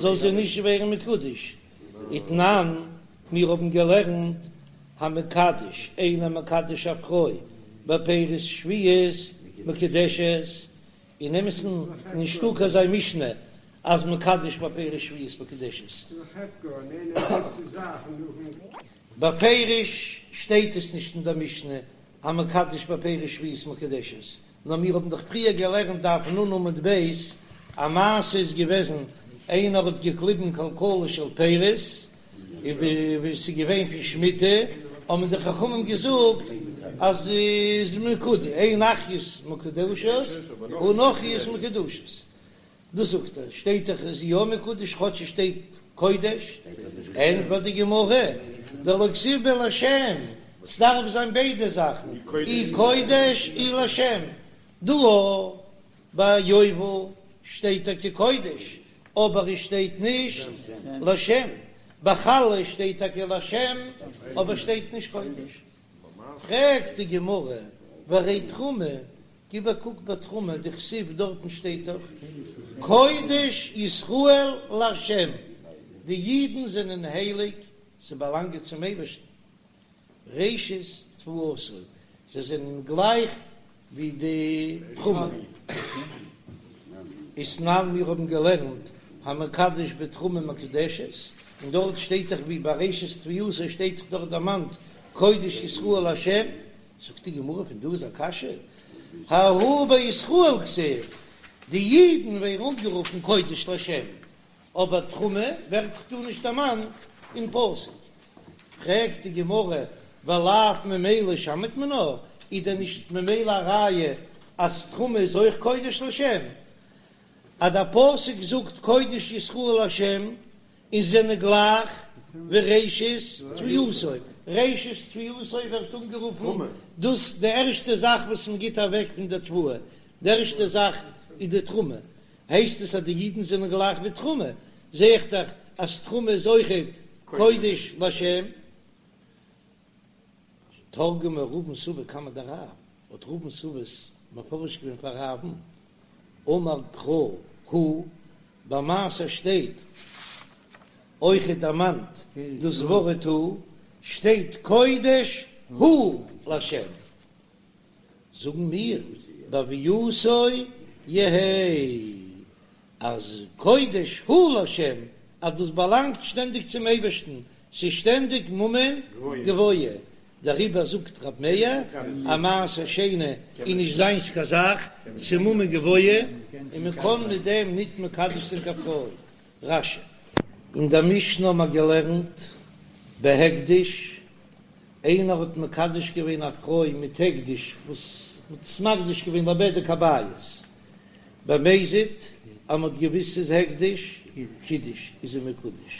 זאל זי נישט ווערן מקודש, ותנן, מיר האבן געלערנט המקדש איינער מקדש א פרוי בפירות שביעית מקודשת, אין אמת'ן נישטא קיין אזא משנה אז מקדש בפירות שביעית מקודשת. בפירוש שטייט עס נישט אין דער משנה המקדש בפירות שביעית מקודשת, נאר מיר האבן דאך פריער געלערנט דף נ עמוד ב', א מעשה איז געוועזן איינער האט געקליבן כלכלה של פירות, און ווי עס איז געווען פון שמיטה, האבן די חכמים געזאגט אז איז מקודש, אין אחיות מקודשות און נכריות מקודשות, דאס זאגט ער, שטייט דאך איז יא מקודש כאטש עס שטייט קודש, ענטפערט די גמרא, דלא כתיב ביה לשם, ס'דארף זיין ביידע זאכן, אי קודש אי לשם, דא ביי יובל שטייט טאקע קודש, אבער עס שטייט נישט לשם, ביי חלה שטייט טאקע לשם אבער שטייט נישט קודש, פרעגט די גמרא, והרי תרומה, גיב א קוק ביי תרומה, דכתיב דארטן שטייט דאך קודש ישראל לה', די אידן זענען הייליג, זיי באלאנגען צום אייבערשטן, ראשית תבואתו, זיי זענען גלייך ווי די תרומה. ותנן מיר האבן געלערנט המקדש בתרומה מקודשת, און דארט שטייט דאך ווי ביי ראשית תבואתו שטייט דאך דארט דערמאנט קודש ישראל לה', זאגט די גמרא פון דא איז א קשיא, ההוא בישראל כתיב, די אידן ווערן אנגערופן קודש לה', אבער תרומה ווערט דאך דא נישט דערמאנט אין פסוק. פרעגט די גמרא, ולאו ממילא שמעת מינה, איז דען נישט ממילא א ראיה אז תרומה איז אויך קודש לשם? אז דער פסוק זאגט קודש ישראל לשם, און זענען גלייך ווי ראשית תבואתו, ראשית תבואתו ווערט אנגערופן דאס די ערשטע זאך וואס מען גיט אוועק פון די תבואה, די ערשטע זאך איז די תרומה, הייסט עס אז די אידן זענען גלייך ווי תרומה, זע איך דאך אז תרומה איז אויכעט. קודש להשם. תרגמה רבין סבא קמיה דרב, האט רבין סבא עס מפרש געווען פאר רב'ן, אמר קרא הוא, ביי מעשר שטייט אויכעט דערמאנט דאס ווארט הוא, שטייט קודש הוא להשם, זאגן מיר בהוייתו יהא אז קודש הוא להשם אז דאס באלאנגט שטענדיג צום אייבערשטן, ס'איז שטענדיג ממון גבוה, דעריבער זאגט רב מאיר אז מעשר שני איז נישט זיינס קיין זאך, ס'איז ממון גבוה און מען קען מיט דעם ניט מקדש זיין קיין פרוי. רש"י. אין דער משנה האבן מיר געלערנט בהקדש, איינער האט מקדש געווען א פרוי מיט הקדש וואס מ'האט עס מקדיש געווען לבדק הבית, במזיד אז מ'האט געוויסט ס'איז הקדש, קידש איז זי מקודש,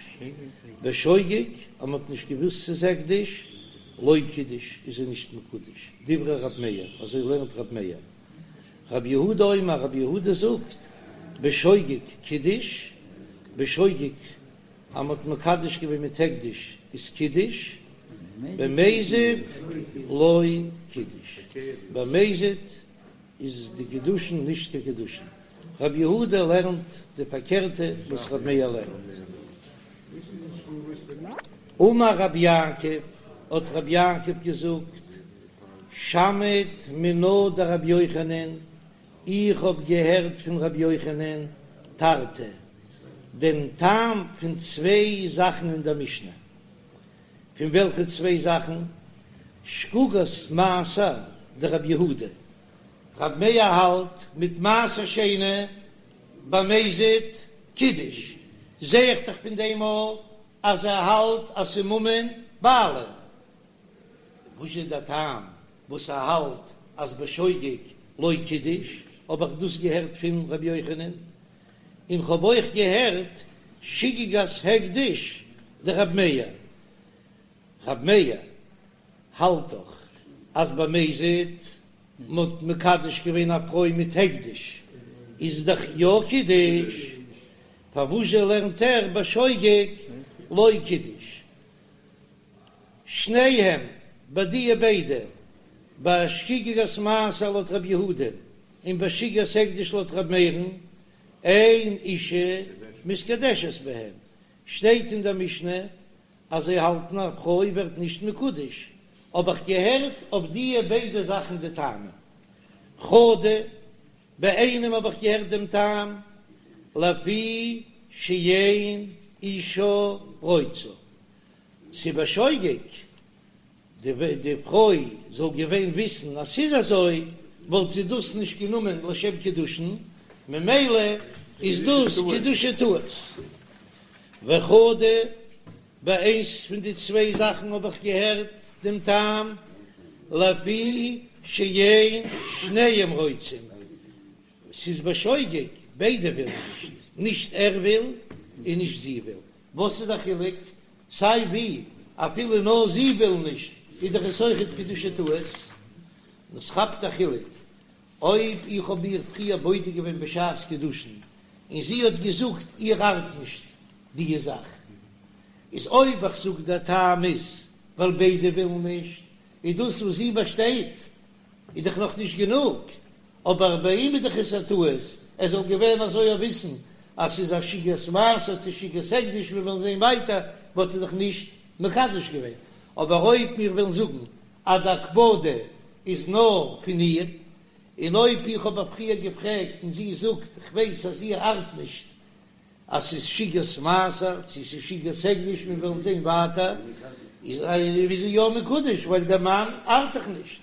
בשוגג אז מ'האט נישט געוויסט ס'איז הקדש, לא קידש איז זי נישט מקודש, דברי רב מאיר, אזוי לערנט רב מאיר. רב יהודה אומר, רב יהודה זאגט, בשוגג קידש, בשוגג אז מ'האט מקדש געווען מיט הקדש איז קידש, במזיד לא קידש, במזיד איז די קידושין נישט קיין קידושין, רב יהודה לערנט די פארקערטע וואס רב מאיר לערנט. אמר רב יעקב, האט רב יעקב געזאגט, שמעית מינה דרבי יוחנן, איך האב געהערט פון רבי יוחנן תרתי, דעם טעם פון צוויי זאכן אין דער משנה. פון וועלכע צוויי זאכן? שגגת מעשר דרבי יהודה, רב מאיר האלט מיט מעשר שני במזיד קידש, זע איך דאך פון דעם אויך אז ער האלט אז ס'איז ממון בעלים. וואס איז דער טעם וואס ער האלט אז בשוגג לא קידש? האב איך דאס געהערט פון ר' יוחנן, און כ'האב אויך געהערט שגגת הקדש דרב מאיר, רב מאיר האלט דאך אז במזיד מ'האט מקדש געווען א פרוי מיט הקדש איז דאך יא קידש, פארוואזשע לערנט ער בשוגג לא קידש? שניהם, ביי דיע ביידע, ביי שגגת מעשר לויט רב יהודה און ביי שגגת הקדש לויט רב מאיר'ן, אין אישה מתקדשת בהם, שטייט אין דער משנה אז זיי האלטן א פרוי ווערט נישט מקודש, האב איך געהערט אויף דיע ביידע זאכן די טעמים. חדא, ביי איינעם האב איך געהערט דעם טעם, לפי שאין אישה רוצה, ס'איז בשוגג, די פרוי זאל געווען וויסן אז ס'איז אזוי, וואלט זי דאס נישט גענומען לשם קידושין, ממילא איז דאס קידושי טעות. וחדא, ביי איינס פון די צוויי זאכן האב איך געהערט דעם טעם, לפי שאין שניהם רוצים, ס'איז בשוגג, ביידע ווילן נישט, נישט ער וויל און נישט זי וויל, וואס איז די חילוק? סיי ווי, אפילו נאר זי וויל נישט, איז דאך עס אויכעט קידושי טעות. דאס כאפט א חילוק, אויב איך האב איר פריער בודק געווען בשעת קידושין, און זי האט געזאגט איר ארט נישט די זאך, איז אויב איך זאג דער טעם איז ווייל ביידע ווילן נישט, איז דאס וואס זי באשטייט איז דאך נאך נישט גענוג, אבער ביי אים איז דאך עס א טעות, ער זאל געווען אזוי א וויסן אז ס'איז א שגגת מעשר צו שגגת הקדש, מיר וועלן זען ווייטער, וואלט ער דאך נישט מקדש געווען, אבער אויב מיר וועלן זאגן אז די הקפדה איז נאר פון איר, און אויב איך האב איר פריער געפרעגט און זי זאגט איך ווייס אז איר ארט נישט אז ס'איז שגגת מעשר צו ס'איז שגגת הקדש, מיר וועלן זען ווייטער, איז זי יא מקודש ווייל דער מאן ארט דאך נישט.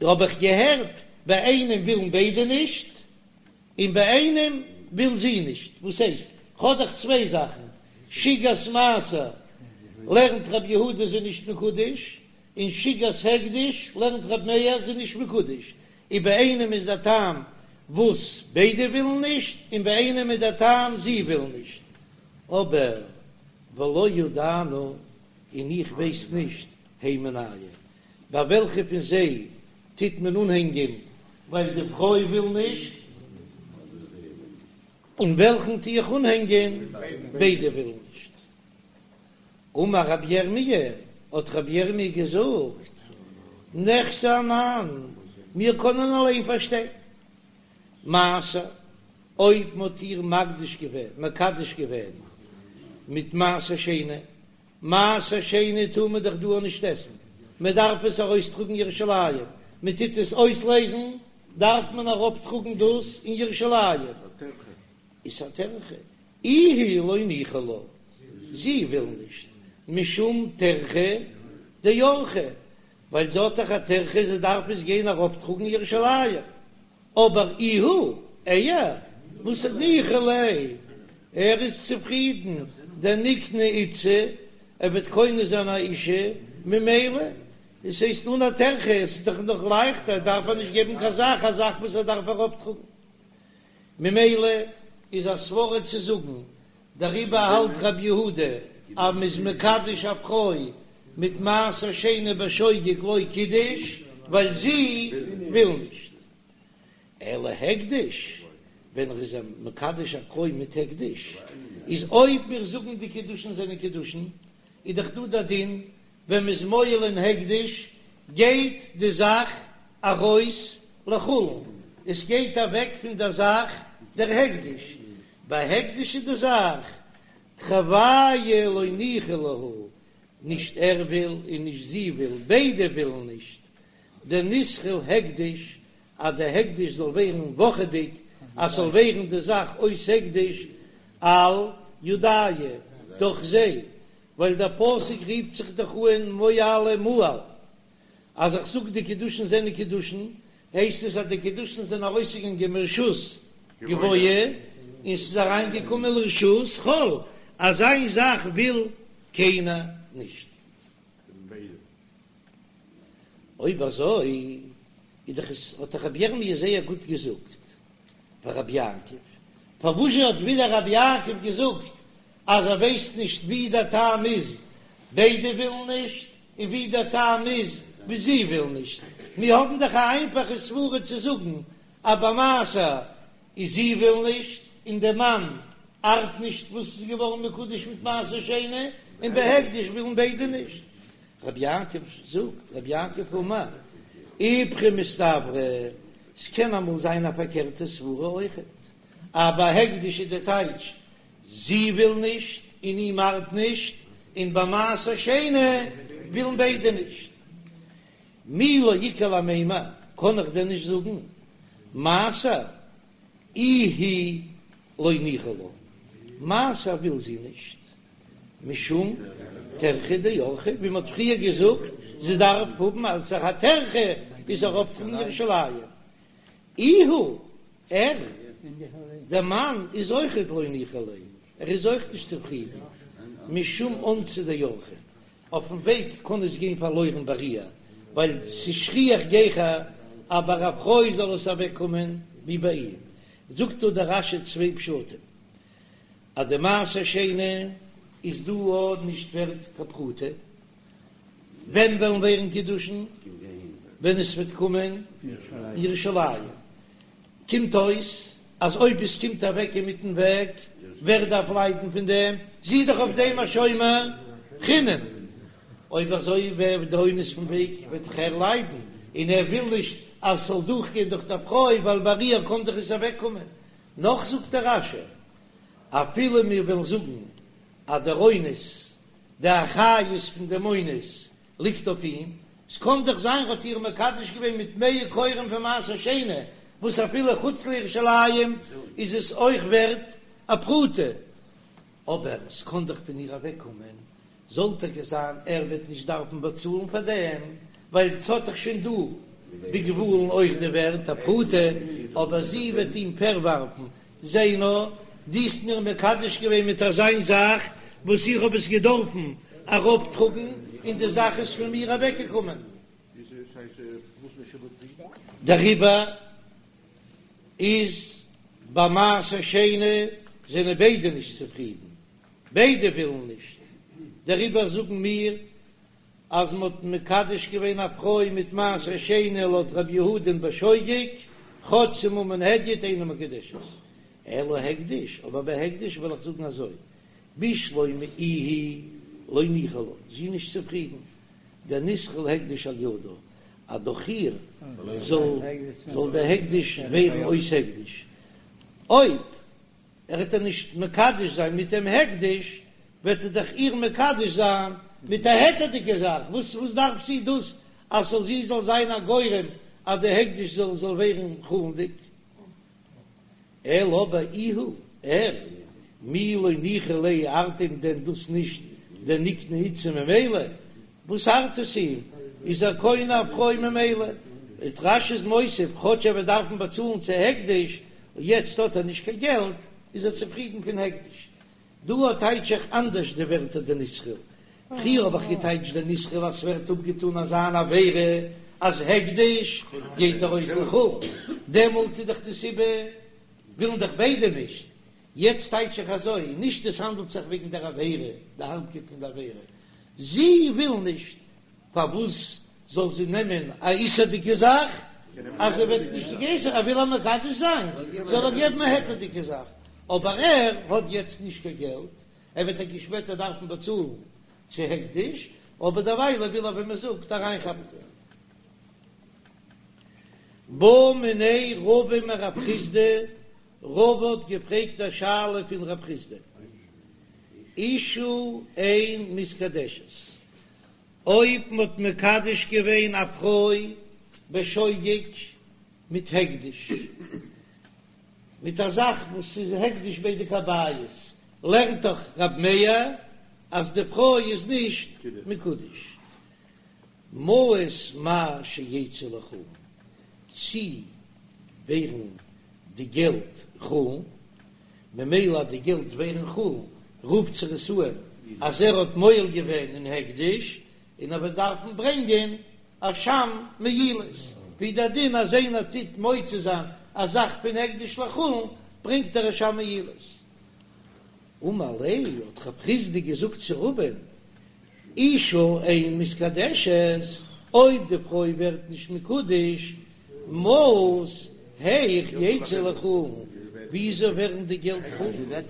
האב איך געהערט, ביי איינעם ווילן ביידע נישט, און ביי איינעם וויל זי נישט, וואס הייסט? כ'האב דאך צוויי זאכן, שגגת מעשר לערנט רבי יהודה זי נישט מקודש, און שגגת הקדש לערנט רבי מאיר זי נישט מקודש, און ביי איינעם איז דער טעם וואס ביידע ווילן נישט, און ביי איינעם איז דער טעם זי וויל נישט, אבער ולא ידענא, און איך ווייס נישט, הי מינייהו, ביי וועלכע פון זיי טוט מען אנהענגען ווייל די פרוי וויל נישט, און וועלכן טו איך אנהענגען ביידע ווילן נישט. אמר רבי ירמי', האט רבי ירמי' געזאגט, ניחזי אנן, מיר קענען אליין פארשטיין. מעשר, אויב מ'האט איר מקדיש געווען, מקדש געווען, מיט מעשר שני, מעשר שני טאר מען דאך דא נישט עסן, מען דארף עס ארויסטראגן ירושלים, מען טוט עס אויסלעזן, דארף מען אראפטראגן דאס אין ירושלים, איז א טרחה, איהו לא ניחא לה, זי וויל נישט, משום טרחה דאורחא, ווייל זי האט דאך א טרחה, זי דארף עס גיין אראפטראגן ירושלים. אבער איהו, ער, וואס ניחא ליה, ער איז צופרידן, דניקני איתתא, ער וועט קונה זיין א אישה, ממילא, עס הייסט אן א טרחה, עס איז דאך נאך לייכטער, דארף ער נישט געבן קיין זאך, א זאך וואס ער דארף אראפטראגן. ממילא איז א סברא צו זאגן, דעריבער האלט רבי יהודה אז מ'איז מקדש א פרוי מיט מעשר שני בשוגג לא קידש, ווייל זי וויל נישט. אלא הקדש, ווען ער איז מקדש א פרוי מיט הקדש, איז אויב מיר זאגן די קידושין זענען קידושין, איז דאך דא דער דין ווען מ'איז מועל אין הקדש גייט די זאך ארויס לחולין, עס גייט אוועק פון דער זאך דער הקדש, ביי הקדש איז די זאך תרוייהו לא ניחא להו, נישט ער וויל און נישט זי וויל, ביידע ווילן נישט, דניתחיל הקדש, אז די הקדש זאל ווערן וואכעדיג, אז ס'זאל ווערן די זאך אויס הקדש על ידייהו, דורך זיי, ווייל דער פסוק רופט זיך דאך אן מועלה מעל, אז איך זאג די קידושין זענען קידושין, הייסט עס אז די קידושין זענען ארויסגעגאנגען מרשות גבוה און ס'איז אריינגעקומען לרשות חול, אזא זאך וויל קיינער נישט. אויב אזוי איז דאך עס האט דאך רבי ירמי' זייער גוט געזאגט פאר רבי יעקב, פארוואזשע האט ווידער רבי יעקב געזאגט אז ער ווייסט נישט ווי דער טעם איז, ביידע ווילן נישט, און ווי דער טעם איז ווי זי וויל נישט, מיר האבן דאך א איינפאכע סברה צו זאגן אז ביי מעשר איז זי וויל נישט און דער מאן ארט נישט וואס איז געווארן מקודש מיט מעשר שני, און ביי הקדש ווילן ביידע נישט. רבי יעקב זאגט, רבי יעקב אמר, איפכא מסתברא, ס'קען אמאל זיין א פארקערטע סברה אויכעט, אז ביי הקדש איז די טייטש זי וויל נישט און אים ארט נישט, און ביי מעשר שני ווילן ביידע נישט. מי לא איכא למימר, קען איך דען נישט זאגן מעשר איהי לא ניחא לה, מעשר וויל זי נישט, משום טרחה דאורחא, ווי מ'האט פריער געזאגט, זי דארף האבן אלס א טרחה איז אראפ פון ירושלים. איהו, ער, דער מאן, איז אויכעט לא ניחא ליה, ער איז אויך נישט צופרידן, משום אונסא דאורחא, אויפן וועג קען עס גיין פארלוירן ביי איר, ווייל ס'איז שכיח גיכער אז ביי א פרוי זאל עס אוועקקומען ווי ביי אים. זאגט דא דער רש"י צוויי פשטים, אז די מעשר שני איז דא אויך נישט ווערט קיין פרוטה, ווען וועלן ווערן קידושין? ווען עס וועט קומען ירושלים. קומט אויס אז אויב עס קומט אוועק אינמיטן וועג, ווער דארף ליידן פון דעם? זי איז דאך אויף דעם א שומר חינם. אויב אזוי ווער די אונס פון וועג וועט דאך ער ליידן, און ער וויל נישט אז עס זאל דורכגיין דורך דער פרוי ווייל ביי איר קען דאך עס אוועקקומען. נאך זאגט דער רש"י, אפילו מיר וועלן זאגן אז דער אונס די אחריות פון דעם אונס ליגט אויף אים, ס'קען דאך זיין ר'האט איר מקדש געווען מיט מאה כורים פון מעשר שני, וואס אפילו חוץ לירושלים איז עס אויך ווערט א פרוטה, אבער ס'קען דאך פון איר אוועקקומען, זאל טאקע זיין ער וועט נישט דארפן באצאלן פאר דעם, ווייל ס'האט דאך שוין דא בגבולין אויך די ווערט א פרוטה, אבער זי וועט אים פארווארפן זע נאר, דו האסט מיר מקדש געווען מיט אזיין זאך וואס איך האב עס געדארפן אראפטראגן, און די זאך איז פון מיר אוועקגעקומען. דעריבער איז ביי מעשר שני זענען ביידע נישט צופרידן, ביידע ווילן נישט, דעריבער זאגן מיר אז מען האט מקדש געווען א פרוי מיט מעשר שני לויט רבי יהודה'ן בשוגג, כאטש ס'איז ממון הדיוט אינה מקודשת, אלא הקדש, אבער ביי הקדש וועל איך זאגן אזוי, בשלמא איהי. לא ניחא לה, זי איז נישט צופרידן, דניתחיל הקדש על ידה, אז דורך איר זאל זאל דער הקדש ווערן אויס הקדש, אויב ער וועט איר נישט מקדש זיין מיט דעם הקדש, וועט ער דאך איר מקדש זיין מיט א היתר'דיגע זאך, וואס וואס דארף זי דאס אז זאל זי זאל זיין א גורם אז די הקדש זאל זאל ווערן חולין'דיג? אלא אבער איהו, ער, מי לא ניחא ליה ארט אים דען דאס נישט דניקני איתתא ממילא? וואס ארט עס אים? איז ער קונה א פרוי ממילא? און רש"י איז מוסיף, כאטש ער וועט דארפן באצאלן צו הקדש, און יעצט האט ער נישט קיין געלט, איז ער צופרידן פון הקדש. דא טייטש איך אנדערש די ווערטער דניתחיל. פריער האב איך געטייטשט דניתחיל אז ס'ווערט אפגעטאן אזא אן עבירה אז הקדש גייט ארויס לחולין, דעמאלט איז דאך די סיבה ווילן דאך ביידע נישט. יעצט טייטש איך אזוי, נישט עס האנדלט זיך וועגן דער עבירה, די הארבקייט פון די עבירה, זי וויל נישט, פארוואס זאל זי נעמען א איסור'דיגע זאך אז זי וועט נישט געסן, ער וויל איר מקדש זיין, זאל ער געבן א היתר'דיגע זאך, אבער ער האט יעצט נישט קיין געלט, ער וועט טאקע שפעטער דארפן באצאלן צו הקדש, אבער דערווייל וויל ער ווי מען זאגט אריינכאפן. בעא מיניה רבא מרב חסדא, רבא האט געפרעגט א שאלה פון רב חסדא, אשה אין מתקדשת, אויב מ'האט מקדש געווען א פרוי בשוגג מיט הקדש, מיט א זאך וואס איז הקדש בדק הבית, לערנט דאך רב מאיר אז די פרוי איז נישט מקודש. מעות מהו שיצאו לחולין, צי ווערן די געלט חולין, ממילא אז די געלט ווערן חולין רופט זיך עס אן אז ער האט מועל געווען אין הקדש און ער וועט דארפן ברענגען אשם מעילות, ווי דער דין אז איינער טוט מוציא זיין א זאך פון הקדש לחולין ברענגט ער אשם מעילות. אמר ליה האט רב חסדא געזאגט צו רבא'ן אשה אין מתקדשת, אויב די פרוי ווערט נישט מקודש, מעות היאך יצאו לחולין, וויאזוי ווערן די געלט חולין?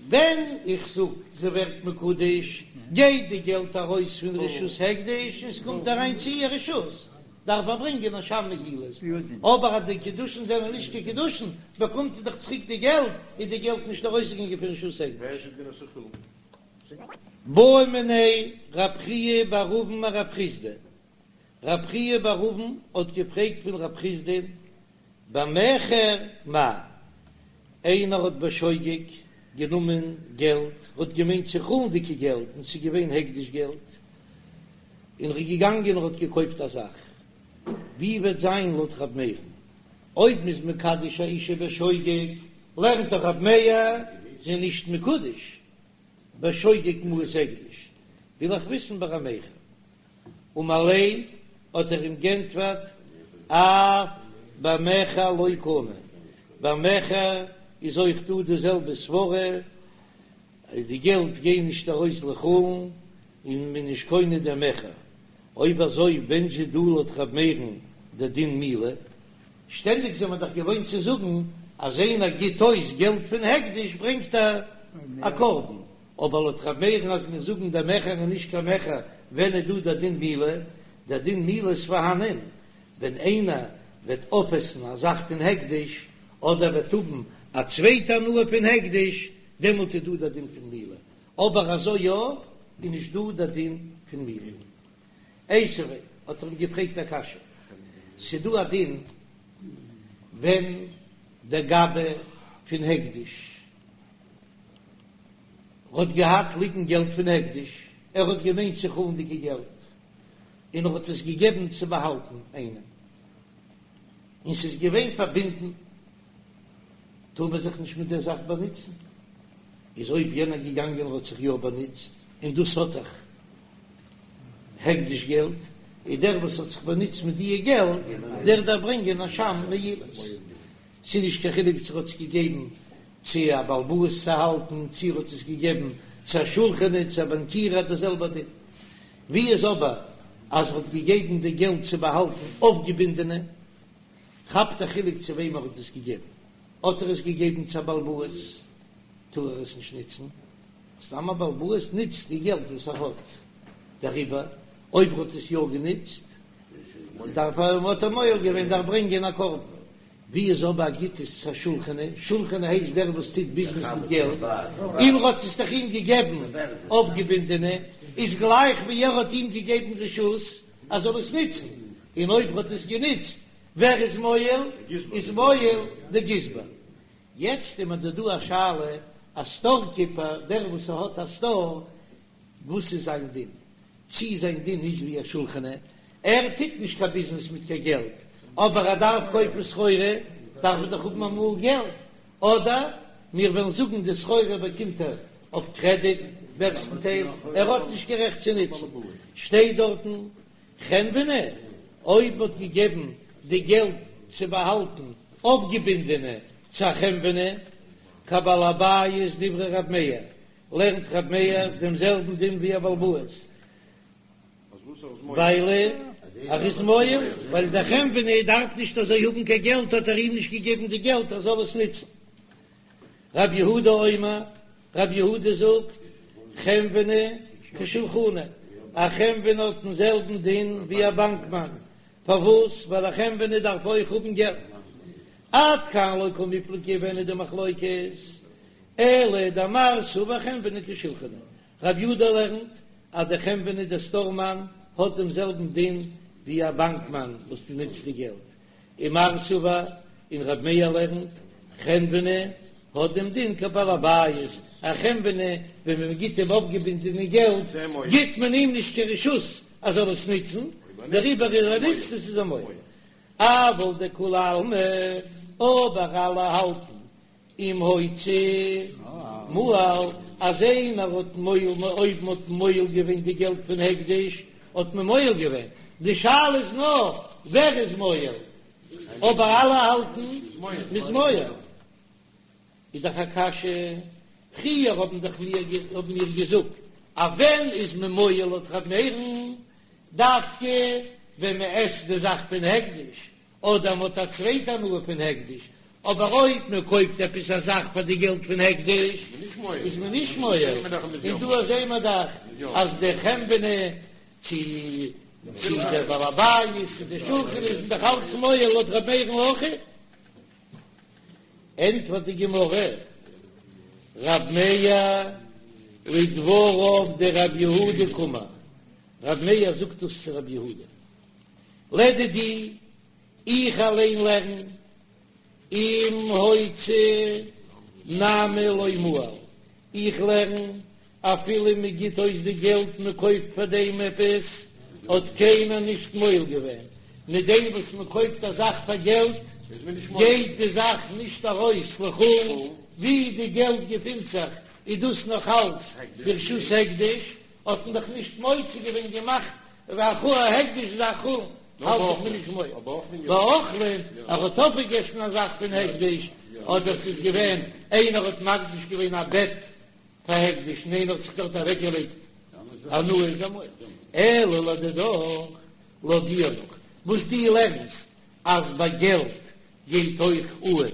ווען איך זאג זי ווערט מקודש, גייט די געלט ארויס פון רשות הקדש און ס'קומט אריין צו איר רשות, דארף ער ברענגען אשם מעילות, אבער אז די קידושין זענען נישט קיין קידושין, באקומט זי דאך צוריק די געלט, איז די געלט נישט ארויסגעגאנגען פון רשות הקדש. בעא מיניה רב חייא בר אבין מרב חסדא, רב חייא בר אבין האט געפרעגט פון רב חסדא במכר מהו, איינער האט בשוגג גענומען געלט, האט געמיינט ס'איז חולין'דיגע געלט און ס'איז געווען הקדש געלט, און ר'איז געגאנגען און ר'האט געקויפט א זאך, ווי וועט זיין לויט רב מאיר'ן אויב מ'איז מקדש א אישה בשוגג, לערנט דאך רב מאיר זי איז נישט מקודש בשוגג מעות הקדש, וויל איך וויסן ביי א מכר. אמר ליה האט ער אים גענטפערט אף במכר לא קנה, ביי מכר איז אויך דא די זעלבע סברה, די געלט גייען נישט ארויס לחולין און מען איז נישט קונה דעם מכר, אויב אזוי ווען זשע דא לויט ר' מאיר'ן דער דין מעילה? שטענדיג זעמער דאך געוואוינט צו זאגן אז איינער גיט אויס געלט פון הקדש ברענגט ער א קרבן, אבער לויט ר' מאיר'ן אז מיר זאגן דער מכר איז נישט קיין מכר ווען איז דא דער דין מעילה? דער דין מעילה איז פארהאנען ווען איינער וועט אויפעסן א זאך פון הקדש אדער וועט האבן א צווייטע הנאה פון הקדש דעמאלט איז דא דער דין פון מעילה, אבער אזוי יא איז נישט דא דער דין פון מעילה. איתיביה האט ער אים געפרעגט א קשיא, ס'דא א דין ווען דער גבאי פון הקדש האט געהאט ליגן געלט פון הקדש, ער האט געמיינט ס'איז חולין'דיגע געלט, און ער האט עס געגעבן צו באהאלטן איינעם, און ס'איז געווען פארבינדן, טאר מען זיך נישט מיט דער זאך באנוצן, איז אויב יענער געגאנגען און האט זיך יא באנוצט, און דאס האט דאך הקדש געלט, איז דער וואס האט זיך באנוצט מיט דיע געלט, דער דארף ברענגען אשם מעילות. ס'איז נישט קיין חילוק צו ער האט עס געגעבן צו א בעל הבית צו האלטן, צו ער האט עס געגעבן צו א שולחני, צו א באנקיר, האט דער זעלבער דין. ווי איז אבער אז ער האט געגעבן די געלט צו באהאלטן אויפגעבינדענע, כאפט א חילוק צו וועם ער האט עס געגעבן, האט ער עס געגעבן צו א בעל הבית טאר ער עס נישט נוצן. סתם א בעל הבית נוצט די געלט וואס ער האט, דעריבער אויב ער האט עס יא גענוצט דארף ער, האט ער מועל געווען, דארף ברענגען א קרבן. ווי איז אבער ער גיט עס צו א שולחני, שולחני הייסט דער וואס טוט ביזנעס מיט געלט, און ער האט עס דאך אים געגעבן אויפגעבינדענע, איז גלייך ווי ער האט אים געגעבן רשות ער זאל עס נוצן, און אויב ער האט עס גענוצט ווער איז מועל? איז מועל די גזבר. יעצט איז מיר דא דא א שאלה, א סטאר קיפער, דער וואס האט א סטאר, וואס איז זיין דין? צי זיין דין איז ווי א שולחני, ער טוט נישט קיין ביזנעס מיט קיין געלט, אבער ער דארף קויפן סחורה, דארף ער דאך האבן אמאל געלט, אדער מיר וועלן זאגן די סחורה באקומט ער אויף קרעדיט, מערסטנטייל, ער האט נישט קיין רעכט צו נוצן, שטייט דארטן חנווני, אויב מ'האט געגעבן די געלט צו באהאלטן אויפגעבינדענע צו א חנווני, כבעל הבית דברי רב מאיר, לערנט רב מאיר דעם זעלבן דין ווי א בעל הבית, ווייל ער איז מועל, ווייל דער חנווני דארף נישט אזוי האבן קיין געלט האט ער אים נישט געגעבן די געלט ער זאל עס נוצן. רב יהודה אומר, רב יהודה זאגט, חנווני כשולחני, א חנווני האט דעם זעלבן דין ווי א באנקמאן, פארוואס? ווייל א חנווני דארף אויך האבן געלט. עד כאן לא קמיפלגי ווען איז די מחלוקת? אלא דמר סבר חנווני כשולחני, רב יהודה לערנט אז דער חנווני דער סטארמאן האט דעם זעלבן דין ווי א באנקמאן וואס נוצט די געלט, ומר סבר און רב מאיר לערנט חנווני האט דעם דין כבעל הבית, א חנווני ווען מען גיט אים אויפגעבינדענע געלט גיט מען אים נישט קיין רשות ער זאל עס נוצן, דעריבער אז ער נוצט עס איז ער מועל. אבל דכולי עלמא, אבער אלע האלטן אם הוציא מעל, אז איינער האט מועל אויב מ'האט מועל געווען די געלט פון הקדש האט מען מועל געווען, די שאלה איז נאר ווער איז מועל, אבער אלע האלטן מ'איז מועל, איז דאך א קשיא, פריער האבן דאך מיר האבן מיר געזאגט אז ווען איז מען מועל לויט ר' מאיר'ן, דווקא ווען מ'עסט די זאך פון הקדש, אדער מ'האט א צווייטע הנאה פון הקדש, אבער אויב מען קויפט עפעס א זאך פאר די געלט פון הקדש איז מען נישט מועל, און דא זעהן מיר דאך אז דער חנווני צו צו דער בעל הבית צו דער שולחני איז דאך אלץ מועל לויט ר' מאיר'ן אויך. ענטפערט די גמרא, רב מאיר לדבריו דרב יהודה קאמר, רב מאיר זאגט דאס צו רב יהודה, לדידי, איך אליין לערן, אם הוציא נמי לא מעל, איך לערן, אפילו מען גיט אויס די געלט מען קויפט פאר דעם עפעס, האט קיינער נישט מועל געווען, מיט דעם וואס מען קויפט א זאך פאר געלט, גייט די זאך נישט ארויס לחולין, ווי די געלט געפינט זיך איז דאס נאך אלץ ברשות הקדש, האט מען דאך נישט מוציא געווען געמאכט והכו א הקדש איז א חולין האלט איך מען נישט מועל באוכלין ער האט אויפגעגעסן א זאך פון הקדש אדער ס'איז געווען איינער האט מקדיש געווען א בעט פאר הקדש און איינער האט זיך דארט אוועקגעלייגט הנאה איז ער מועל אלא לדידך לויט דיר נאך וואס דו לערנסט אז ביי געלט גייט אויך אן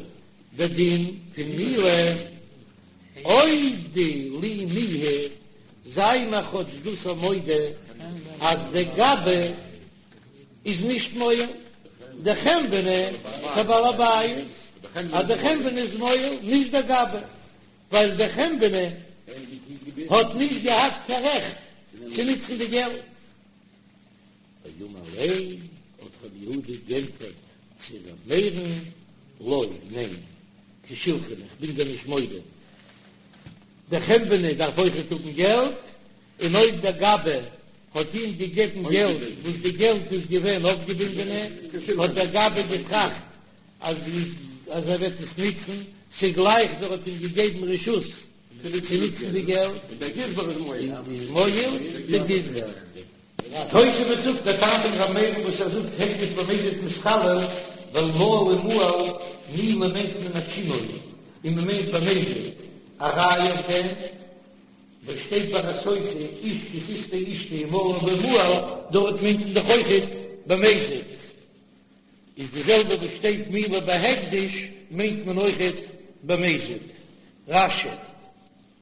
די דין פון מעילה, אודי לי מיהא, זיי מיר כאטש דאס א מודה אז די גבאי איז נישט מועל, דחנווני כבעל הבית, אז די חנווני איז מועל, נישט די גבאי, ווייל די חנווני האט נישט געהאט קיין רעכט צו נוצן די געלט. ואמר ליה, האט רבי יהודה גענטפערט צו ר' מאיר'ן, לא, ניין, כשולחני, איך בין דיר נישט מודה, דער חנווני דארף אויכעט האבן געלט, און אויב דער גבאי האט אים געגעבן געלט וואס די געלט איז געווען אויפגעבינדענע, האט דער גבאי געטראכט אז אז ער וועט עס נוצן, ס'גלייך ווי ער האט אים געגעבן רשות צו נוצן די געלט, איז מועל די גזבר. תוספות זאגט דער טעם פון ר' מאיר'ן וואס ער זאגט הקדש במזיד מתחלל ווייל מעל ומועל מעילה מיינט מען א שינוי און מען מיינט במזיד א ראיה אויף דעם וואס שטייט ביי א סוטה איש כי תשטה אשתו ומעלה ומעל דארט מיינט מען דאך אויכעט במזיד איז די זעלבע וואס שטייט מעילה בהקדש מיינט מען אויכעט במזיד. רש"י.